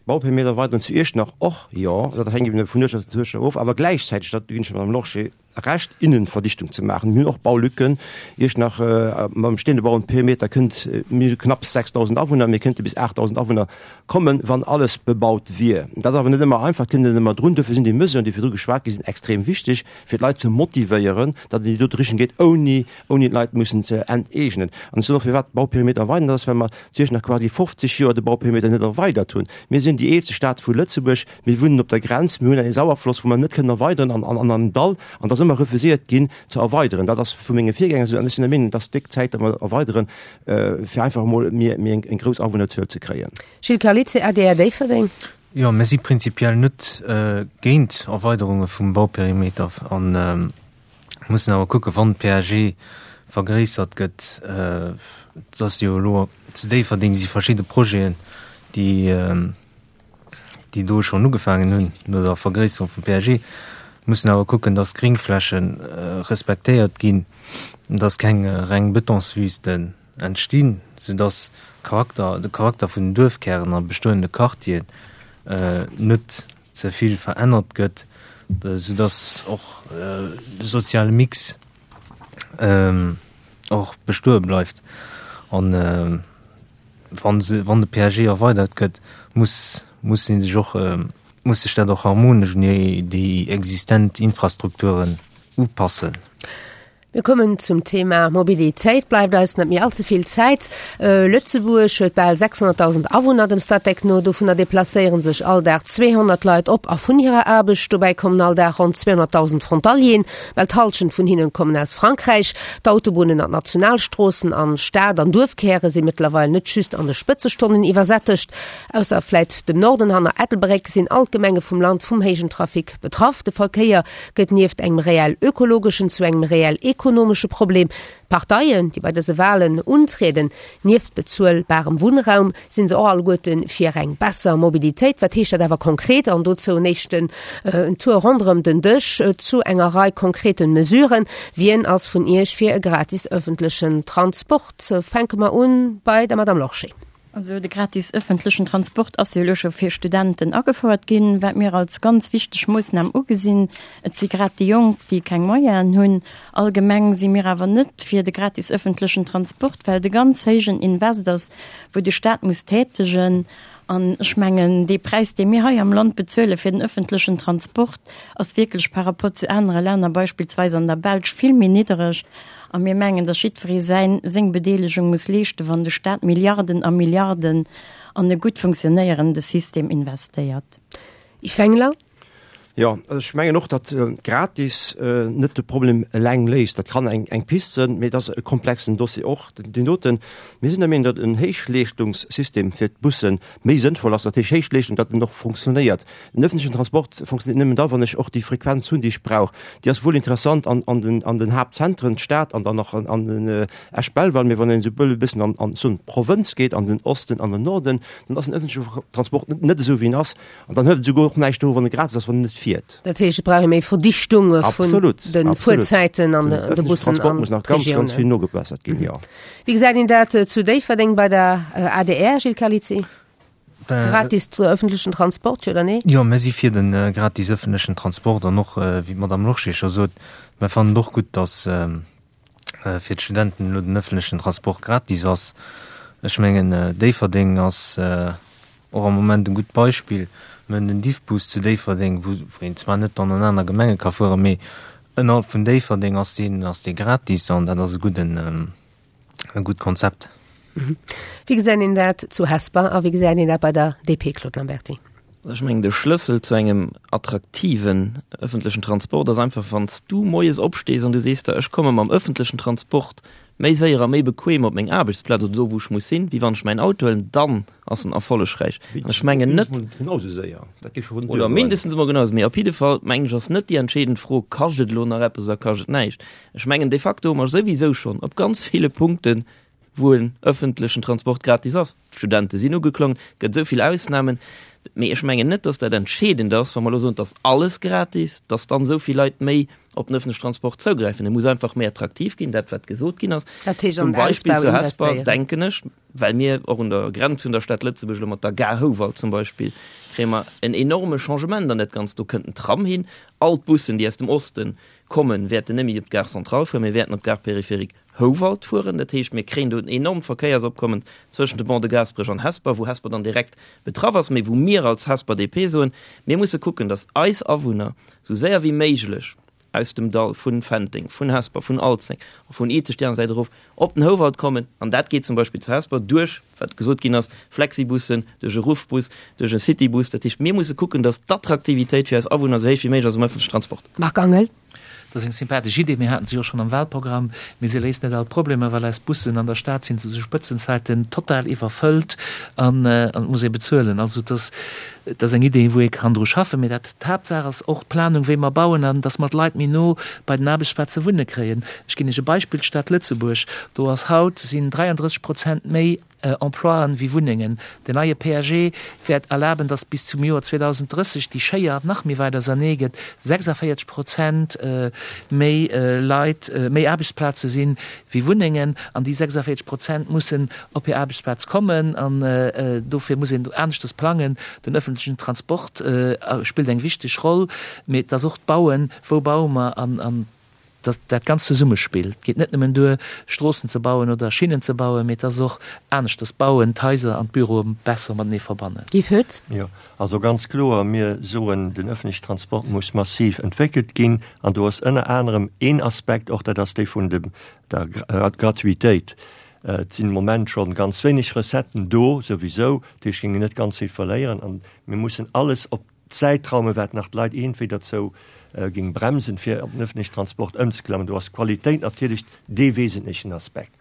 Bauperimeter erweideren zu Iechternach och jo. Dat hänkt eben vun Uertschaft zu Uertschaft of. Awer gläichzäiteg, dat ginn ech der Madame Lorsché Recht, Innenverdichtung ze maachen. Mir hunn och Baulücken. Iechternach mam besteende Bauenperimeter kënnt, mir hu knapps 6.000 Awunner, mir kënnte bis 8.000 Awunner kommen, wann alles bebaut wier. Dat ass awer net ëmmer einfach, et kënnt net ëmmer drun. Dofir sinn déi Mesuren, déi virdru geschwat gi sinn, extrem wichteg, fir d'Leit ze motivéieren, datt et an déi dote Richtung geet, ouni ouni d'Leit mussen ze enteegnen. An ech soen och, firwat d'Bauperimeter erweidern, dat ass, well mer zu Iechternach quasi 50 Joer de Bauperimeter net erweidert hunn. Mir sinn déi eelste Stad vu Lëtzebuerg, mir wunnen op der Grenz, mir hunn e Sauerfloss, wou mer net kënnen erweideren an an an Dall, an et ass ëmmer refuséiert ginn ze erweideren. Dat ass vu menge Virgänger esou, an ech sinn der Meenung, et ass déck Zäit, datt mer erweideren, fir einfach emol méi méi eng grouss Awunnerzuel ze kréien. Gilles Carlizzi, adr Déifferdeng. Jo, mir si prinzipiell net géint Erweiderunge vum Bauperimeter an mussen awer kucken, wann d'PAG vergréissert gëtt, et ass jo elo zu Déifferdeng si verschidde Projeten, déi déi do schonn ugefaangen hunn no der Vergréisserung vum PAG, mussen awer kucken, dass d'Gréngfläche respektéiert ginn, dass keng reng Betonswüsten entstinn, soudass Charakter, de Charakter vun den Duerfkären a bestoende Quartieren net ze vill verännert gëtt, soudass och de soziale Mix och bestoe bleift. An wann se, wann de PAG erweidert gëtt, muss, muss ee sech och, muss sech dat och harmonesch un déi existent Infrastrukturen upassen. Mir kommen zum Thema Mobilitéit. Bleift eis net méi all ze vill Zäit. Lëtzebuerg huet bal 600.000 Awunner, dem Statec no. Dovunner deplacéiere sech all Dag 200 Leit op a vun hirer Aarbecht. Dobäi kommen all Dag ronn 200.000 Frontalieren. Bal d'Hallschent vun hinnen kommen aus Frankräich. D'Autobunnen an d'Nationalstroossen an Stad an Duerfkäre si mëttlerweil net just an de Spëtzestonnen iwwersättegt. Ausser vläit dem Norden hanner Ettelbréck sinn all d'Gemenge vum Land vum héijen Trafic betraff. De Verkéier gëtt nieft engem reell ökologeschen zu engem reell ekonomesche Problem. D'Parteien, déi bei dëse Walen untrieden, nieft bezuelbarem Wunnraum, sinn se och alleguerte fir eng besser Mobilitéit. Wat heescht dat awer konkret? An dozou en éischten Tour ronderëm den Dësch zu enger Rei konkreten Mesuren. Wien ass vun Iech fir e gratis ëffentlechen Transport? Fänke mer un bei der Madame Lorsché. Also de gratis ëffentlechen Transport ass jo elo scho fir Studenten agefouert ginn, wat mir als ganz wichteg Moossnam ugesinn. Et si grad déi Jonk, déi keng Moyenen hunn. Allgemeng si mir awer net fir de gratis ëffentlechen Transport, well et e ganz héijen Invest ass, wou de Staat muss tätegen. An ech mengen, dee Präis, dee mir hei am Land bezuele fir den ëffentlechen Transport, ass wierklech par rapport zu anere Länner, beispillsweis an der Belsch, vill méi niddereg. A mir mengen, datt jiddweree säin, seng Bedeelegung muss leeschten, wann de Staat Milliarden a Milliarden an e gutt funktionéierende System investéiert. Yves Wengler. Jo, ech mengen och, datt gratis net de Problem eleng léist. Dat kann eng, eng Pist sënn, mee et ass e komplexen Dossier och, deen doten. Mir sinn der Meenung, datt en Héichleeschtungssystem fir d'Busse méi sënnvoll ass, dat heescht Héichleeschtung, datt en och funktionéiert. Den öffentlichen Transport funktioniert nëmmen da, wann ech och déi Frequenz hunn, déi ech brauch. Déi ass wuel interessant an, an den, an den Haaptzentren, d'Stad an dann nach an, an den äh, Esch-Belval, mee wann een esou e bëssen an, an soen d'Provënz geet, an den Osten, an den Norden, dann ass den öffentliche Transport net, net esou wéi en ass. An dann hëlt et esouguer och näischt do, wann e gratis ass, wann en net fiert. Dat heescht, et brauch ee méi Verdichtung vun de Fuerzäiten an de Bussen an Transport muss nach ganz, ganz vill nogebessert ginn, jo. Wéi gesäit een dat zu Déifferdeng bei der adr, Gilles Carlizzi? Gratis ëffentlechen Transport, jo oder nee? Jo, mir si fir de gratis ëffentlechen Transport an och, wéi d'Madame Lorsché scho sot, mir fannen et och gutt, datt fir d'Studenten elo den ëffentlechen Transport gratis ass. Ech mengen, Déifferdeng ass och am Moment e gutt Beispill. Mir hunn den Diffbus zu Déifferdeng, wou een zwar net dann an aner Gemenge ka fueren, mee ënnerhalb vun Déifferdeng ass deen, ass dee gratis an dat ass e gudden, e gutt Konzept. Wéi gesäit een dat zu Hesper a wéi gesäit een dat bei der DP, Claude Lamberty? Ech mengen, de Schlëssel zu engem attraktiven ëffentlechen Transport ass einfach, wann s du moies opstees an du sees der, ech komme mam ëffentlechen Transport méi séier a méi bequem op meng Aarbechtsplaz oder do, wou ech muss sinn, wéi wann ech mäin Auto huelen, dann ass en erfollegräich. An ech mengen net. Oder mindestens emol genau esou. Mee op jidde Fall, mengen ech, ass net déi entscheedend Fro, Kascht et elo nach eppes oder kascht et näischt? Ech mengen, de facto hu mer souwisou schonn op ganz ville Punkte. wou en ëffentlechen Transport gratis ass. D'Studente sinn ugeklongen, et gëtt esou vill Ausnamen. Mee ech mengen net, dass dat entscheedend ass, wa mer elo soen, et ass alles gratis, dass dann esou vill Leit méi op den ëffentlechen Transport zougräifen. E muss einfach méi attraktiv ginn, dat wat gesot ginn ass. Dat heescht, an Zum den Beispill Ausbau zu Hesper, investéieren. denken ech, well mir och un der Grenz vun der Stad Lëtzebuerg elo mat der Gare Houwald zum Beispill, kréie mer en enorme Changement an dat Ganzt. Do kënnt en Tram hin. All d'Bussen, déi aus dem Osten kommen, wäerten net méi op d'Gare Centrale fueren, mee wäerten op d'Gare Périphérique Houwald fueren. Dat heescht, mir kréien do en enormt Verkéiersopkommen zwëschent de Pont de Gaasperech an Hesper, wou Hesper dann direkt betraff ass, mee wou mir als Hesper DP soen, mir musse kucken, datt eis Awunner esou séier wéi méiglech aus dem Dall vun Fenteng, vun Hesper, vun Alzeng a vun Izeg déi aner Säit erof op den Houwald kommen. An dat geet zum Beispill zu Hesper duerch, wat gesot ginn ass, Flexibussen, duerch e Ruffbus, duerch e Citybus. Dat heescht, mir musse kucken, datt d'Attraktivitéit fir eis Awunner esou héich wéi méiglech ass um ëffentlechen Transport. Marc Angel. Dat ass eng sympathesch Idee. Mir haten se jo schonn am Wahlprogramm. Mee se léist net all d'Problemer, well eis Bussen an der Stad sinn zu de Spëtzenzäiten total iwwerfëllt an et muss ee bezuelen. Also et ass, et ass eng Idee, wou ee kann dru schaffen. Mee dat, d'Haaptsaach ass och d'Planung, wéi mer bauen an dass mer d'Leit méi no bei den Aarbechtsplaze wunne kréien. Ech ginn Iech e Beispill, D'Stad Lëtzebuerg, do ass haut, sinn 33 Prozent méi Emploien wéi Wunnengen. Den neie PAG wäert erlaben, datt bis zum Joer 2030 déi Schéier nach méi wäit ausernee gëtt, 46 Prozent méi Leit, méi Aarbechtsplaze sinn wéi Wunnengen an déi 46 Prozent mussen op hir Aarbechtsplaz kommen an dofir muss een aneschters plangen. Den ëffentlechen Transport spillt eng wichteg Roll, mee et ass och d'Bauen, wou baue mer an Datt dat Ganzt zesummespill. Et geet net nëmmen duer, Stroossen ze bauen oder Schinnen ze bauen, mee et ass och aneschters bauen, d'Haiser an d'Büroe besser matenee verbannen. Guy Foetz. Jo, also ganz kloer, mir soen, den öffentliche Transport muss massiv entwéckelt ginn. An do ass ënner anerem een Aspekt och, dat ass dee vun dem, der Gratuitéit. Et sinn de Moment scho ganz wéineg Recetten do souwisou, dat heescht, géinge net ganz vill verléieren. An mir mussen alles op Zäitraume wat nach d'Leit iergendwéi derzou géing bremsen, fir op den öffentlichen Transport ëmzeklammen. Do ass d'Qualitéit natierlech dee wesentlechen Aspekt.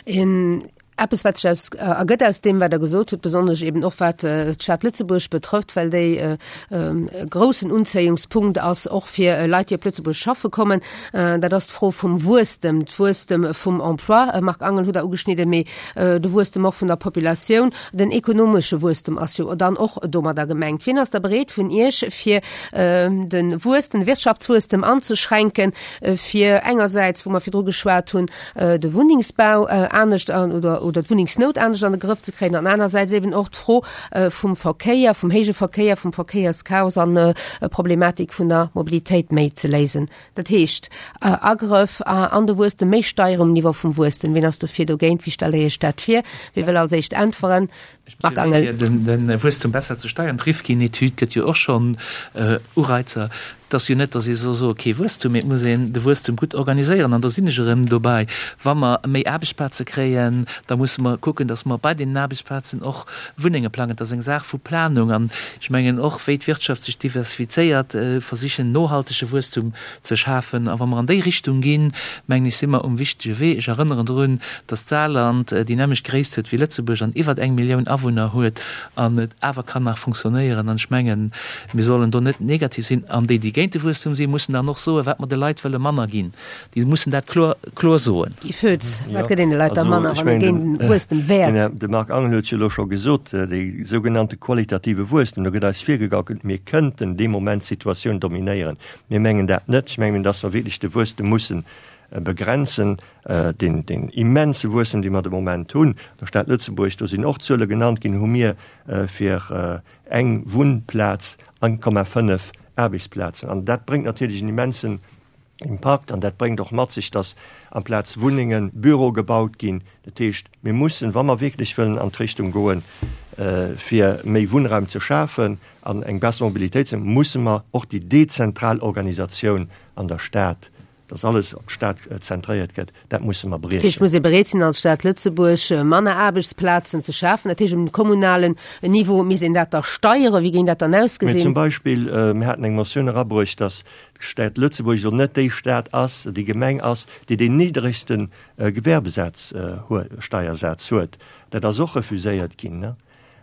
Een eppes, wat sech aus ergëtt aus deem, wat Der gesot hutt, besonnesch eben och wat d'Stad Lëtzebuerg betrëfft, well déi e groussen Unzéiungspunkt ass och fir Leit, déi op Lëtzebuerg schaffe kommen, dat ass d'Fro vum Wuesstem, d'Wuesstem vum Emploi. Marc Angel hutt Der ugeschnidden, mee de Wuesstem och vun der Populatioun. Den ekonomesche Wuesstem ass jo dann och domadder gemengt. Wien ass da bereet vun Iech, fir de Wuesstem, de Wirtschaftswuesstem anzeschränken, fir engersäits, wou mer virdru geschwat hunn, de Wunnengsbau anescht an oder oder d'Wunnengsnout anescht an de Grëff ze kréien an anersäits eben och d'Fro vum Verkéier, vum héije Verkéier, vum Verkéierschaos an d'Problematik vun der Mobilitéit méi ze léisen? Dat heescht, Agrëff an de Wuesstem, méi Steieren um Niveau vum Wuesstem. Wien ass dofir, dogéint? Wéi stellt Der Iech dat vir? Wie wëll als éischt äntweren? Marc Angel. Fir de Wuesstum besser ze steieren, d'Rifkin-Etüd gëtt jo och schonn Ureizer. Et ass jo net, datt ee soll soe kee Wuesstum, mee et muss een de Wuesstum gutt organiséieren. An do sinn ech erëm dobäi, Wa mer méi Aarbechtsplaze kréien, da musse mer kucken, datt mer bei deenen Aarbechtsplazen och Wunnenge plangen. Et ass eng Saach vu Planung. An Ech mengen och, wéi d'Wirtschaft sech diversifizéiert, versichen nohaltege Wuesstum ze schafen. A wa mer an déi Richtung ginn, mengen ech, si mer um wichtege Wee. Ech erënneren drun, datt d'Saarland déi nämmlecht Gréisst huet wéi Lëtzebuerg an iwwert eng Millioun Awunner huet an et awer kann nach funktionéieren. An ech mengen, mir sollen do net negativ sinn. An déi, déi géint de Wuesstum sinn, mussen dann och soen, wat mer de Leit wëlle manner ginn. Déi mussen dat kloer, kloer soen. Guy Foetz, Wat gëtt een de Leit da manner, wann ee géint den Wuesstem wär? De Marc Angel huet jo elo scho gesot, dee sougenannte qualitative Wuesstem, do gëtt eis virgegaukelt, mir kënnten dee Moment d'Situatioun dominéieren. Mir mengen dat net. Ech mengen, datt mer wierklech de Wuesstem mussen begrenzen, deen, deen immense Wuesstem, dee mer de Moment hunn. An der Stad Lëtzebuerg, do sinn och Zuele genannt ginn, hu mir fir eng Wunnplaz 1,5 Aarbechtsplazen. An dat bréngt natierlech en immensen Impakt an dat bréngt och mat sech, dass amplaz Wunnengen Büroe gebaut ginn. Dat heescht, mir mussen, wa mer wierklech wëllen an d'Richtung goen, fir méi Wunnraum ze schafen an eng besser Mobilitéit ze, musse mer och déi dezentral Organisatioun an der Stad, dass alles op d'Stad zentréiert gëtt, dat musse mer Dat heescht, briechen. muss ee bereet sinn als Stad Lëtzebuerg manner Aarbechtsplazen ze schafen. Dat heescht, um kommunalen Niveau misst een dat da steieren. Wéi géing dat dann Mee ausgesinn? zum Beispill, mir haten eng Motioun erabruecht, dass d'Stad Lëtzebuerg elo net déi Stad ass, déi Gemeng ass, déi deen niddregste Gewerbesaz huet, Steiersaz huet. Dat ass och refuséiert ginn.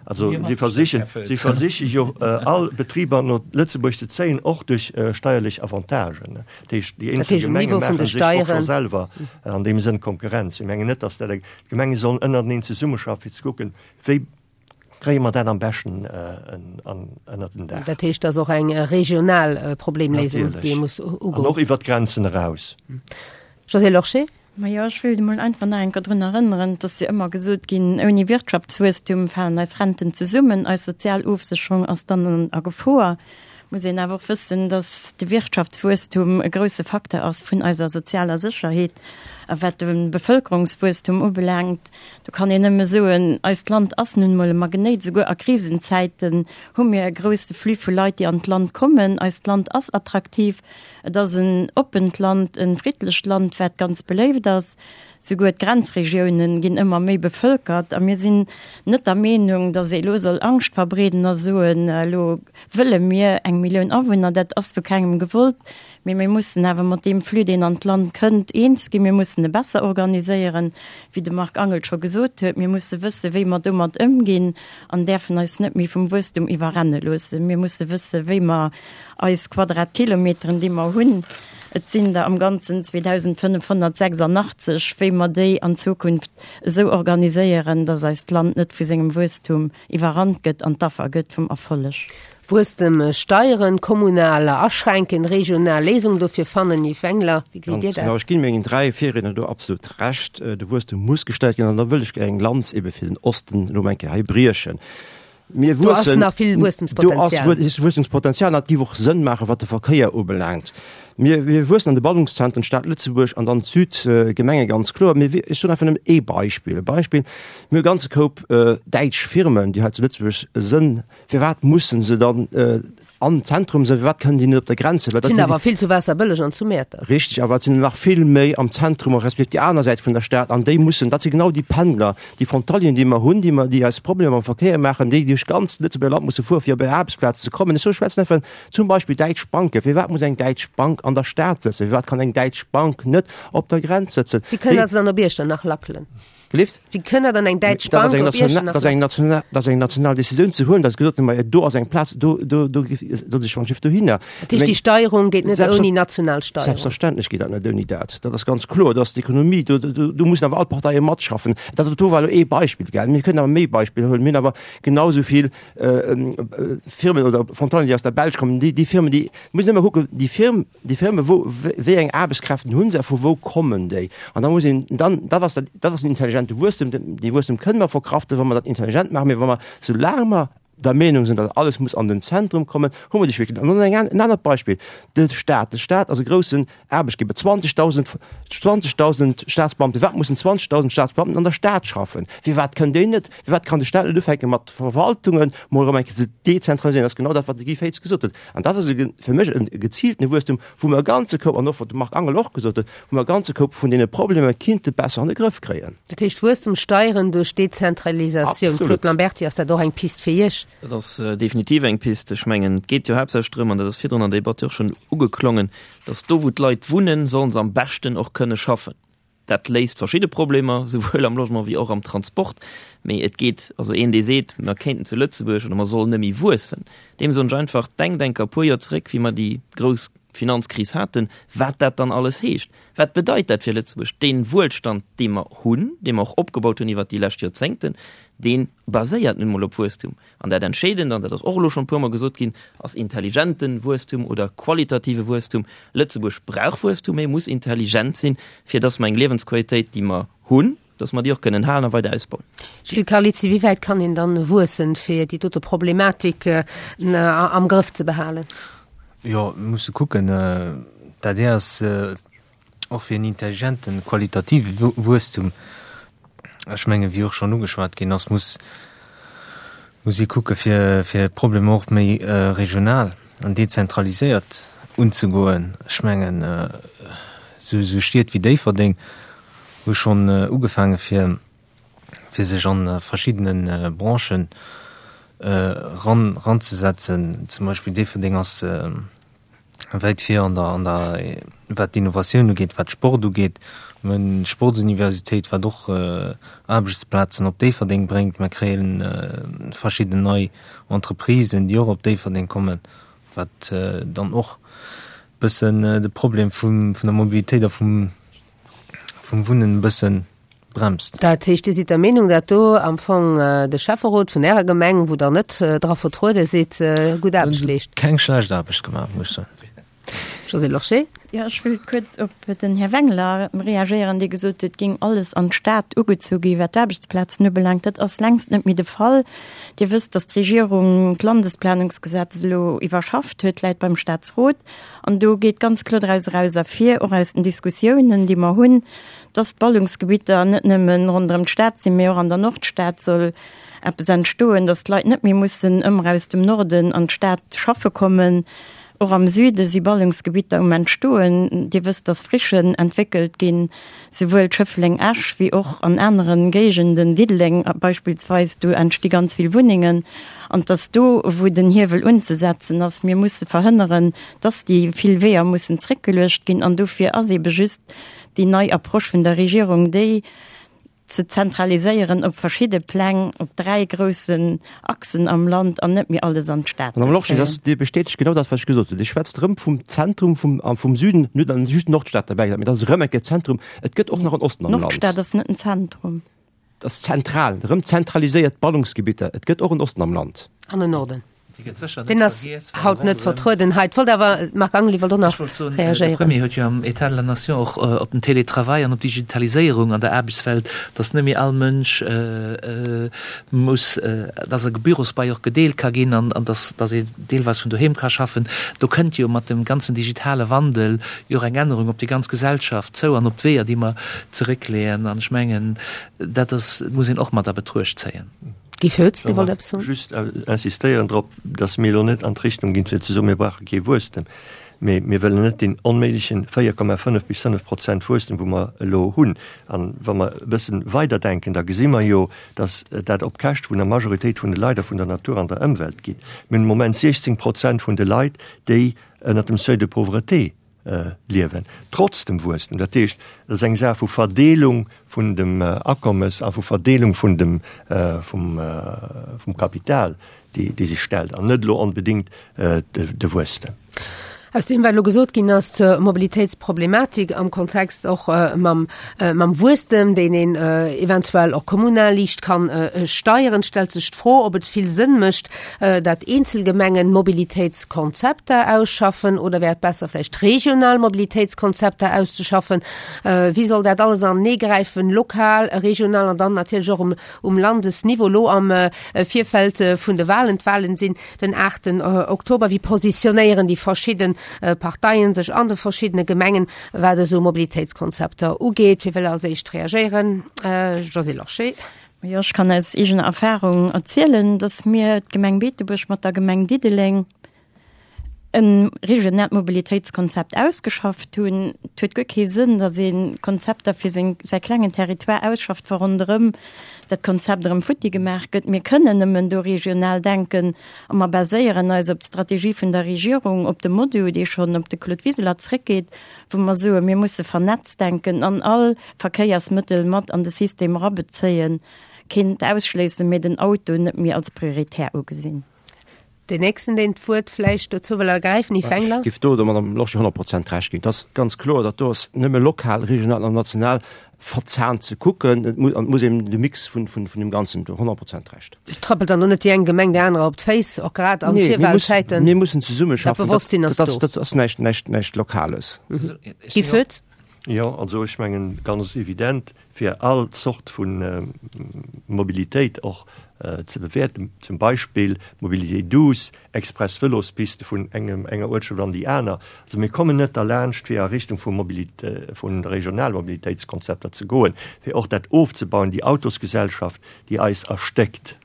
Also si versichen, si versiche jo all Betriber no Lëtzebuerg ze zéien, och duerch steierlech Avantagen. Dat heescht, déi eenzel Gemenge maache sech och scho selwer an deem Sënn Konkurrenz. Ech mengen net, datt dat eng, d'Gemenge sollen ënnerteneen zesummeschaffen, fir ze kucken, wéi kréie mer dat am beschten ënnert den Daach. Dat heescht, dat ass och eng regional Problemléisung, déi ee muss ugoen. An och iwwert d'Grenzen eraus. Josée Lorsché. Majo, ech wéilt emol einfach nach eng Kéier drun erënneren, et ass jo ëmmer gesot ginn, ouni Wirtschaftswuesstum falen eis Renten zesummen, eis sozial Ofsécherung ass dann a Gefor. Muss een awer och wëssen, dass de Wirtschaftswuesstum e grouse Facteur ass vun eiser sozialer Sécherheet. A wat de Bevëlkerungswuesstum ubelaangt, do kann een nëmme soen, eist Land ass nun emol e Magnéit. Souguer a Krisenzäiten hu mir e grouse Flux vu Leit, déi an d'Land kommen. Eist Land ass attraktiv. Et ass en oppent Land, e friddlecht Land, wat ganz beléift ass. Souguer d'Grenzregiounen ginn ëmmer méi bevëlkert. A mir sinn net der Meenung, datt ee elo soll Angscht verbreeden a soen, elo wëlle mir eng Millioun Awunner. Dat ass vu kengem gewollt. Mee mir mussen awer mat deem Flux, deen an d'Land kënnt, eens ginn. Mir mussen e besser organiséieren, wéi de Marc Angel scho gesot huet. Mir musse wëssen, wéi mer domat ëmginn an däerfen eis net méi vum Wuesstum iwwerrenne loossen. Mir musse wëssen, wéi mer Eis Quadratkilometeren, déi mer hunn, et sinn der am Ganzen 2.586, wéi mer déi an Zukunft esou organiséieren, dass eist Land net vu sengem Wuesstum iwwerrannt gëtt an d'Affer gëtt vum Erfolleg. Wuesstem steieren, kommunal aschränken, regional Léisungen dofir fannen. Yves Wengler, wéi gesitt Dir dat? Ganz genau, ech ginn mengen 3 Virriedner do absolut Recht. De Wuesstem muss gestellt ginn an da wëll ech eng Lanz ebe fir den Osten elo mol eng Kéier hei briechen. Mir Do ass wuessen, nach vill Wuesstemspotenzial. Do ass Wuesstemspotenzial an dat géif och Sënn maachen, wat de Verkéier ubelaangt. Mir, mir wuessen an de Ballungszentren, d'Stad Lëtzebuerg an dann d'Südgemenge ganz kloer. Mir, ech soen einfach nëmmen ee Beispill, e Beispill, Mir hu e ganze Koup däitsch Firmen, déi hei zu Lëtzebuerg sënn. Firwat mussen se dann Am Zentrum sinn, firwat kënnen déi net op der Grenz sinn? Well dat sinn awer vill zu Waasserbëlleg an zu Mäertert. Richteg, awer et sinn nach vill méi am Zentrum a respektiv déi aner Säit vun der Stad an déi mussen, dat si genau déi Pendler, déi Frontalieren, déi mer hunn, déi mer, déi eis Problemer am Verkéier maachen, déi duerch d'ganz Lëtzebuerger Land musse fuere fir op hir Aarbechtsplaz ze kommen. Ech soe schwätzen einfach zum Beispill däitsch Banken. Firwat muss eng däitsch Bank an der Stad sëtzen? Firwat kann eng däitsch Bank net op der Grenz sëtzen? Déi kënnen also dann op Iechternach lackelen. Gelift? Wéi kënn dann eng däitsch Bank op Iechternach? Dat ass eng national, dat ass eng national Decisioun ze huelen, datt gesot gëtt, ma do ass eng Plaz, do, do, do soll sech wann Schiff dohinner. Dat heescht, déi Steierung geet net ouni national Steierung? Selbstverständlech geet dat net ouni dat. Dat ass ganz kloer, dat ass d'Ekonomie, do, do, do mussen awer all Parteie matschaffen. Dat do war elo ee Beispill, gell. Mir kënnen awer méi Beispiller huelen. Mir hunn awer genau esou vill Firmen oder Frontalieren, déi aus der Belsch kommen, déi, déi Firmen, déi, muss een ëmmer kucken, déi Firm, Déi Firme, wou, wéi eng Aarbechtskräften hu se a vu wou kommen déi? An da muss een dann, dat ass dat, dat ass den intelligente Wuesstem, dee Wuesstem kënne mer verkraften, wa mer dat intelligent maachen, mee wa mer, soulaang mer der Meenung sinn, datt alles muss an den Zentrum kommen, hu mer déi Schwierigkeeten. An dann eng, en anert Beispill, de Staat. De Staat ass e groussen Aarbechtgeber, 20.000, 20.000 Staatsbeamten. Firwat mussen 20.000 Staatsbeamten an der Stad schaffen? Firwat kënnen déi net, firwat kann de Staat net ufänke mat Verwaltungen mol erëm eng Kéier ze dezentraliséieren? Dat ass genau dat, wat de Guy Féitz gesot huet. An dat ass e fir mech e geziiltene Wuesstum, wou mer e ganze Koup, an och wat de Marc Angel och gesot huet, wou mer e ganze Koup vun deene Problemer kinnte besser an de Grëff kréien. Dat heescht Wuesstem steieren duerch Dezentralisatioun. Claude Lamberty, ass dat och eng Pist fir Iech? Dat ass definitiv eng Pist. Ech mengen, et geet jo haaptsächlech drëm, an dat ass virdrun an der Debatt jo och schonn ugeklongen, datt do wou d'Leit wunnen, sollen se am beschten och kënne schaffen. Dat léist verschidde Problemer, souwuel am Logement wéi och am Transport. Mee et geet, also een dee seet, mer kéinten zu Lëtzebuerg oder mer sollen net méi wuessen, deem soen ech einfach, denkt enker e puer Joer zeréck, wéi mer déi grouss Finanzkris haten, wat dat dann alles heescht. Wat bedeit dat fir Lëtzebuerg? Dee Wuelstand, dee mer hunn, dee mer och opgebaut hunn iwwert déi lescht Joerzéngten, dee baséiert nun emol op Wuesstum. An dat Entscheedend, an dat ass och elo schonn e puermol gesot ginn, ass intelligente Wuesstum oder qualitative Wuesstum. Lëtzebuerg brauch Wuesstum, mee muss intelligent sinn, fir dass mer eng Liewensqualitéit, déi mer hunn, dass mer déi och kënnen halen a weider ausbauen. Gilles Carlizzi, wéi wäit kann een dann wuessen, fir déi dote Problematik am Grëff ze behalen? Jo, mir musse kucken. D'adr ass Och fir en intelligenten, qualitative Wuesstum, ech mengen, wéi och schonn ugeschwat ginn ass, muss muss ee kucke fir fir d'Problemer och méi regional an dezentraliséiert unzegoen. Ech mengen, esou esou Stied wéi Déifferdeng hu schonn ugefaange fir fir sech a verschiddene Branchen eran eranzesetzen. Zum Beispill Déifferdeng ass. Wäit vir an der, an der, wat d'Innovatioun ugeet, wat Sport ugeet. Mir hunn d'Sportsuniversitéit, wat och Aarbechtsplazen op Déifferdeng bréngt. Mir kréie verschidden nei Entreprisen, déi och op Déifferdeng kommen, wat dann och e bëssen de Problem vum, vun der Mobilitéit a vum, vum Wunnen e bëssen bremst. Dat heescht, Dir sidd der Meenung, dat do am Fong de Schäfferot vun Ärer Gemeng, wou Der net dra vertruede sidd, gutt Aarbecht leescht? Keng schlecht Aarbecht gemaach, muss ech soen. Josée Lorsché. Jo, ech wëll kuerz op den Här Wengler reagéieren, dee gesot huet, et géing alles an d'Stad ugezu gi wat d'Aarbechtsplazen ubelaangt. Dat ass längst net méi de Fall. Dir wësst, datt d'Regierung d'Landesplanungsgesetz elo iwwerschafft huet, läit beim Staatsrot. An do geet ganz kloer draus eraus ervir, och aus den Diskussiounen, déi mer hunn, dass d'Ballungsgebitter net nëmme ronderëm d'Stad sinn, mee och an der Nordstad soll eppes entstoen, dass d'Leit net méi mussen ëmmer aus dem Norden an d'Stad schaffe kommen. Och am Süde si Ballungsgebitter um Entstoen. Dir wësst, dass Frichen entwéckelt ginn, souwuel Schëffleng-Esch wéi och an anere Géigenden, Diddeleng beispillsweis, do entsti ganz vill Wunnengen. An dass do, wou den Hiewel unzesetzen ass, mir musse verhënneren, dass déi vill Weeër mussen zréckgeluecht ginn. An dofir ass eebe just déi nei Approche vun der Regierung, déi ze zentraliséieren op verschidde Pläng, op 3 groussen Achsen am Land an net méi alles an d'Stad ze Madame Lorsché, zéien. Dir bestätegt genau dat, wat ech gesot hunn. Dir schwätzt erëm vum Zentrum vum, vum Süden, mir hunn dann just d'Nordstad derbäi gesat, mee dat ass erëm eng Kéier Zentrum. Et gëtt och nach en Osten am Land. D'Nordstad ass net en Zentrum. Et ass zentral, erëm zentraliséiert Ballungsgebitter. Et gëtt och en Osten am Land. An en Norden. Deen ass haut net vertrueden hei. Et wollt awer, Marc Angel, Dir wollt och nach reagéieren. De Premier huet jo am État de la Nation och op den Télétravail an op d'Digitaliséierung an der Aarbechtswelt, datt net méi all Mënsch muss, datt e Bürosbai och gedeelt ka ginn an datt datt ee deelweis vun doheem ka schaffen. Do kënnt jo mat dem ganzen digitale Wandel jo och eng Ännerung op déi ganz Gesellschaft zou an op d'Weeër, déi mer zeréckleeën. An ech mengen, dat ass, muss een och mat a Betruecht zéien. Guy Foetz, Dir wollt eppes soen? Just insistéieren drop, datt mir elo net an d'Richtung ginn, fir ze soen, mir brauche kee Wuesstem, mee mir wëllen net deen onméiglechen 4,5 bis 5 Prozent Wuesstem, wou mer elo hunn. An wa mer e bësse weiderdenken, da gesi mer jo, datt dat op Käschte vun der Majoritéit vun de Leit a vun der Natur an der Ëmwelt geet. Mir hunn am Moment 16 Prozent vun de Leit, déi ënnert dem Seuil de pauvreté liewen, trotz dem Wuesstem. Dat heescht, et ass eng Saach vu Verdeelung vun dem Akommes a vu Verdeelung vun dem, vum, vum Kapital, déi, déi sech stellt, an net elo onbedéngt de Wuesstem. Aus deem, wat elo gesot ginn ass zur Mobilitéitsproblematik am Kontext och mam, mam Wuesstem, deen een eventuell och kommunal liicht kann steieren, stellt sech d'Fro, ob et vill Sënn mécht, dat eenzel Gemengen Mobilitéitskonzepter ausschaffen oder wär et besser vläicht regional Mobilitéitskonzepter auszeschaffen? Wéi soll dat alles anenee gräifen, lokal, regional an dann natierlech och um, um Landesniveau? Elo am Virfeld vun de Wahlen, d'Wahlen sinn den 8 Oktober, wéi positionéieren déi verschidde Parteien sech an de verschiddene Gemengen, wat esou Mobilitéitskonzepter ugeet? Wie wëll als éischt reagéieren? Josée Lorsché. Jo, ech kann aus eegener Erfahrung erzielen, dass mir, d'Gemeng Beetebuerg mat der Gemeng Diddeleng, e regionaalt Mobilitéitskonzept ausgeschafft hunn. Et huet guer kee Sënn, dass ee Konzepter fir seng, säi klengen Territoire ausschafft, wa ronderëm dat Konzept erëm futti gemaach gëtt. Mir kënnen nëmmen do regional denken a mer baséieren eis op d'Strategie vun der Regierung, op de MoDu, dee schonn op de Claude Wiseler zréckgeet, wou mer soen, mir musse vernetzt denken an all Verkéiersmëttel mat an de System erabezéien, keent ausschléissen, mee den Auto net méi als prioritär ugesinn. Deen nächsten, deen d'Wuert vläicht dozou wëll ergräifen, Yves Wengler. Ech géif do der Madame Lorsché 100 Prozent Recht ginn. Et ass ganz kloer, datt do ass nëmme lokal, regional an national verzahnt ze kucken. Et muss, an et muss een de Mix vun, vun, vun deem Ganzen, do 100 Prozent Recht. Et trëppelt dann och net déi eng Gemeng där anerer op d'Féiss, och grad an Virwahlzäiten. Mir mussen zesummeschaffen. Dat Bewosstsinn ass do. Dat ass näischt, näischt, näischt Lokales. Guy Foetz. Jo, also ech mengen, ganz evident, fir all Zort vu Mobilitéit och ze bewäerten, zum Beispill Mobilité douce, express Vëlospiste vun engem, enger Uertschaft an déi aner. Also mir kommen net derlaanscht, fir a Richtung vu Mobilité, vu Regionalmobilitéitskonzepter ze goen, fir och dat ofzebauen, déi Autosgesellschaft, déi eis erstéckt.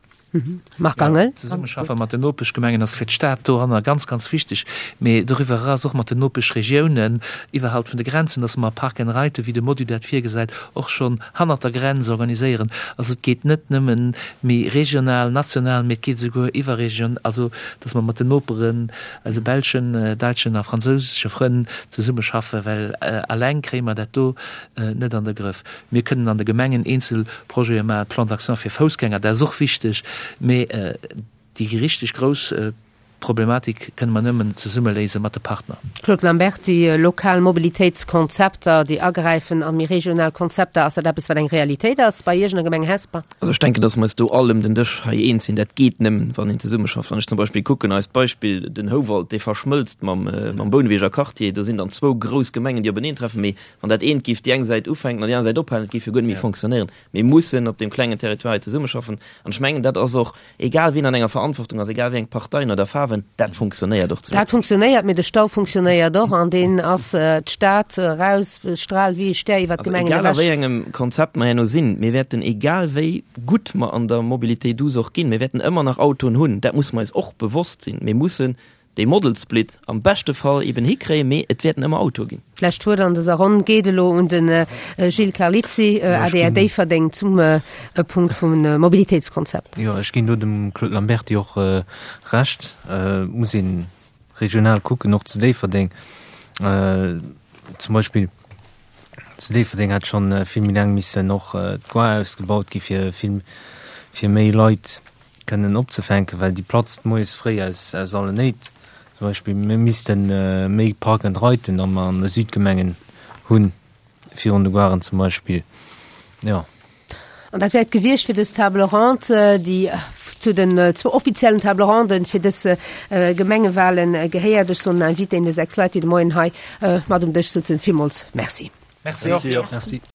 Marc Angel. D'Zesummeschaffe mat den Nopeschgemengen ass fir d'Stad doranner ganz, ganz wichteg, mee doriwwer eraus och mat den Nopeschregiounen, iwwerhalb vun de Grenzen, dass mer Park and Ride, wéi de Module dat virgesäit, och schonn hannert der Grenz organiséieren. Also et geet net nëmmen méi regional, national, mee et geet esouguer iwwerregion, also dass mer mat den Noperen, eise belschen, daitschen a fransousesche Frënn zesummeschaffen, well alleng kréie mer dat do net an de Grëff. Mir kënnen an de Gemengen eenzel Projete maachen, Plan d'action fir Foussgänger, dat ass och wichteg, mee déi richteg grouss Problematik kënne mer nëmmen zesumme léise mat de Partner. Claude Lamberty, Lokal Mobilitéitskonzepter, déi agräifen a méi regional Konzepter, ass dat eppes, wat eng Realitéit ass bei Iech an der Gemeng Hesper? Also ech denken, datt mer eis do all ëm den Dësch hei eens sinn, dat geet nëmmen, wann een zesummeschafft. Wann ech zum Beispill kucken, eist Beispill, den Houwald, dee verschmëlzt mam Bouneweger Quartier, do sinn dann zwou grouss Gemengen, déi openeentreffen, mee Wann dat eent géif déi eng Säit ufänken an déi aner Säit ophalen, et géif jo guer net méi fonctionnéieren. Mir mussen op deem klengen Territoire hei zesummeschaffen. An ech mengen, dat ass och, egal wien an enger Verantwortung ass, egal wéi eng Parteien oder Faarwen, dat funktionéiert och zu Dat funktionéiert, mee de Stau funktionéiert och an deen ass d'Stad eraus, straalt wéi e Stär iwwert d'Gemengen ewech. Also egal a wéi engem Konzept mer herno sinn, mir wäerten, egal wéi gutt mer an der Mobilité douce och ginn, mir wäerten ëmmer nach Autoen hunn. Dat musse mer eis och bewosst sinn. Mir mussen dee Model Split am beschte Fall eben hikréien, mee et wäerten ëmmer Autoe ginn. D'lescht Wuert an dëser Ronn geet elo un de Gilles Carlizzi, adr Déifferdeng, zum Punkt vum Mobilitéitskonzept. Jo, ech ginn do dem Claude Lamberty och Recht. Et muss ee regional kucken, och zu Déifferdeng. Zum Beispill zu Déifferdeng hätt schonn vill méi laang missen och d'Gare ausgebaut gi fir vill, fir méi Leit kënnen opzefänken, well déi platzt moies fréi aus aus allen Néit. Zum Beispill mir misste méi Park and Riden am an de Südgemengen hunn, virun de Garen zum Beispill, jo. An dat wär et gewiescht fir dës Table ronde, déi zu den zwou offiziellen Table ronden fir dës Gemengewahlen gehéiert. Ech soen den Invitéen, de 6 Leit, déi de Moien hei mat um Dësch sutzen, villmools Merci. Merci och. Merci.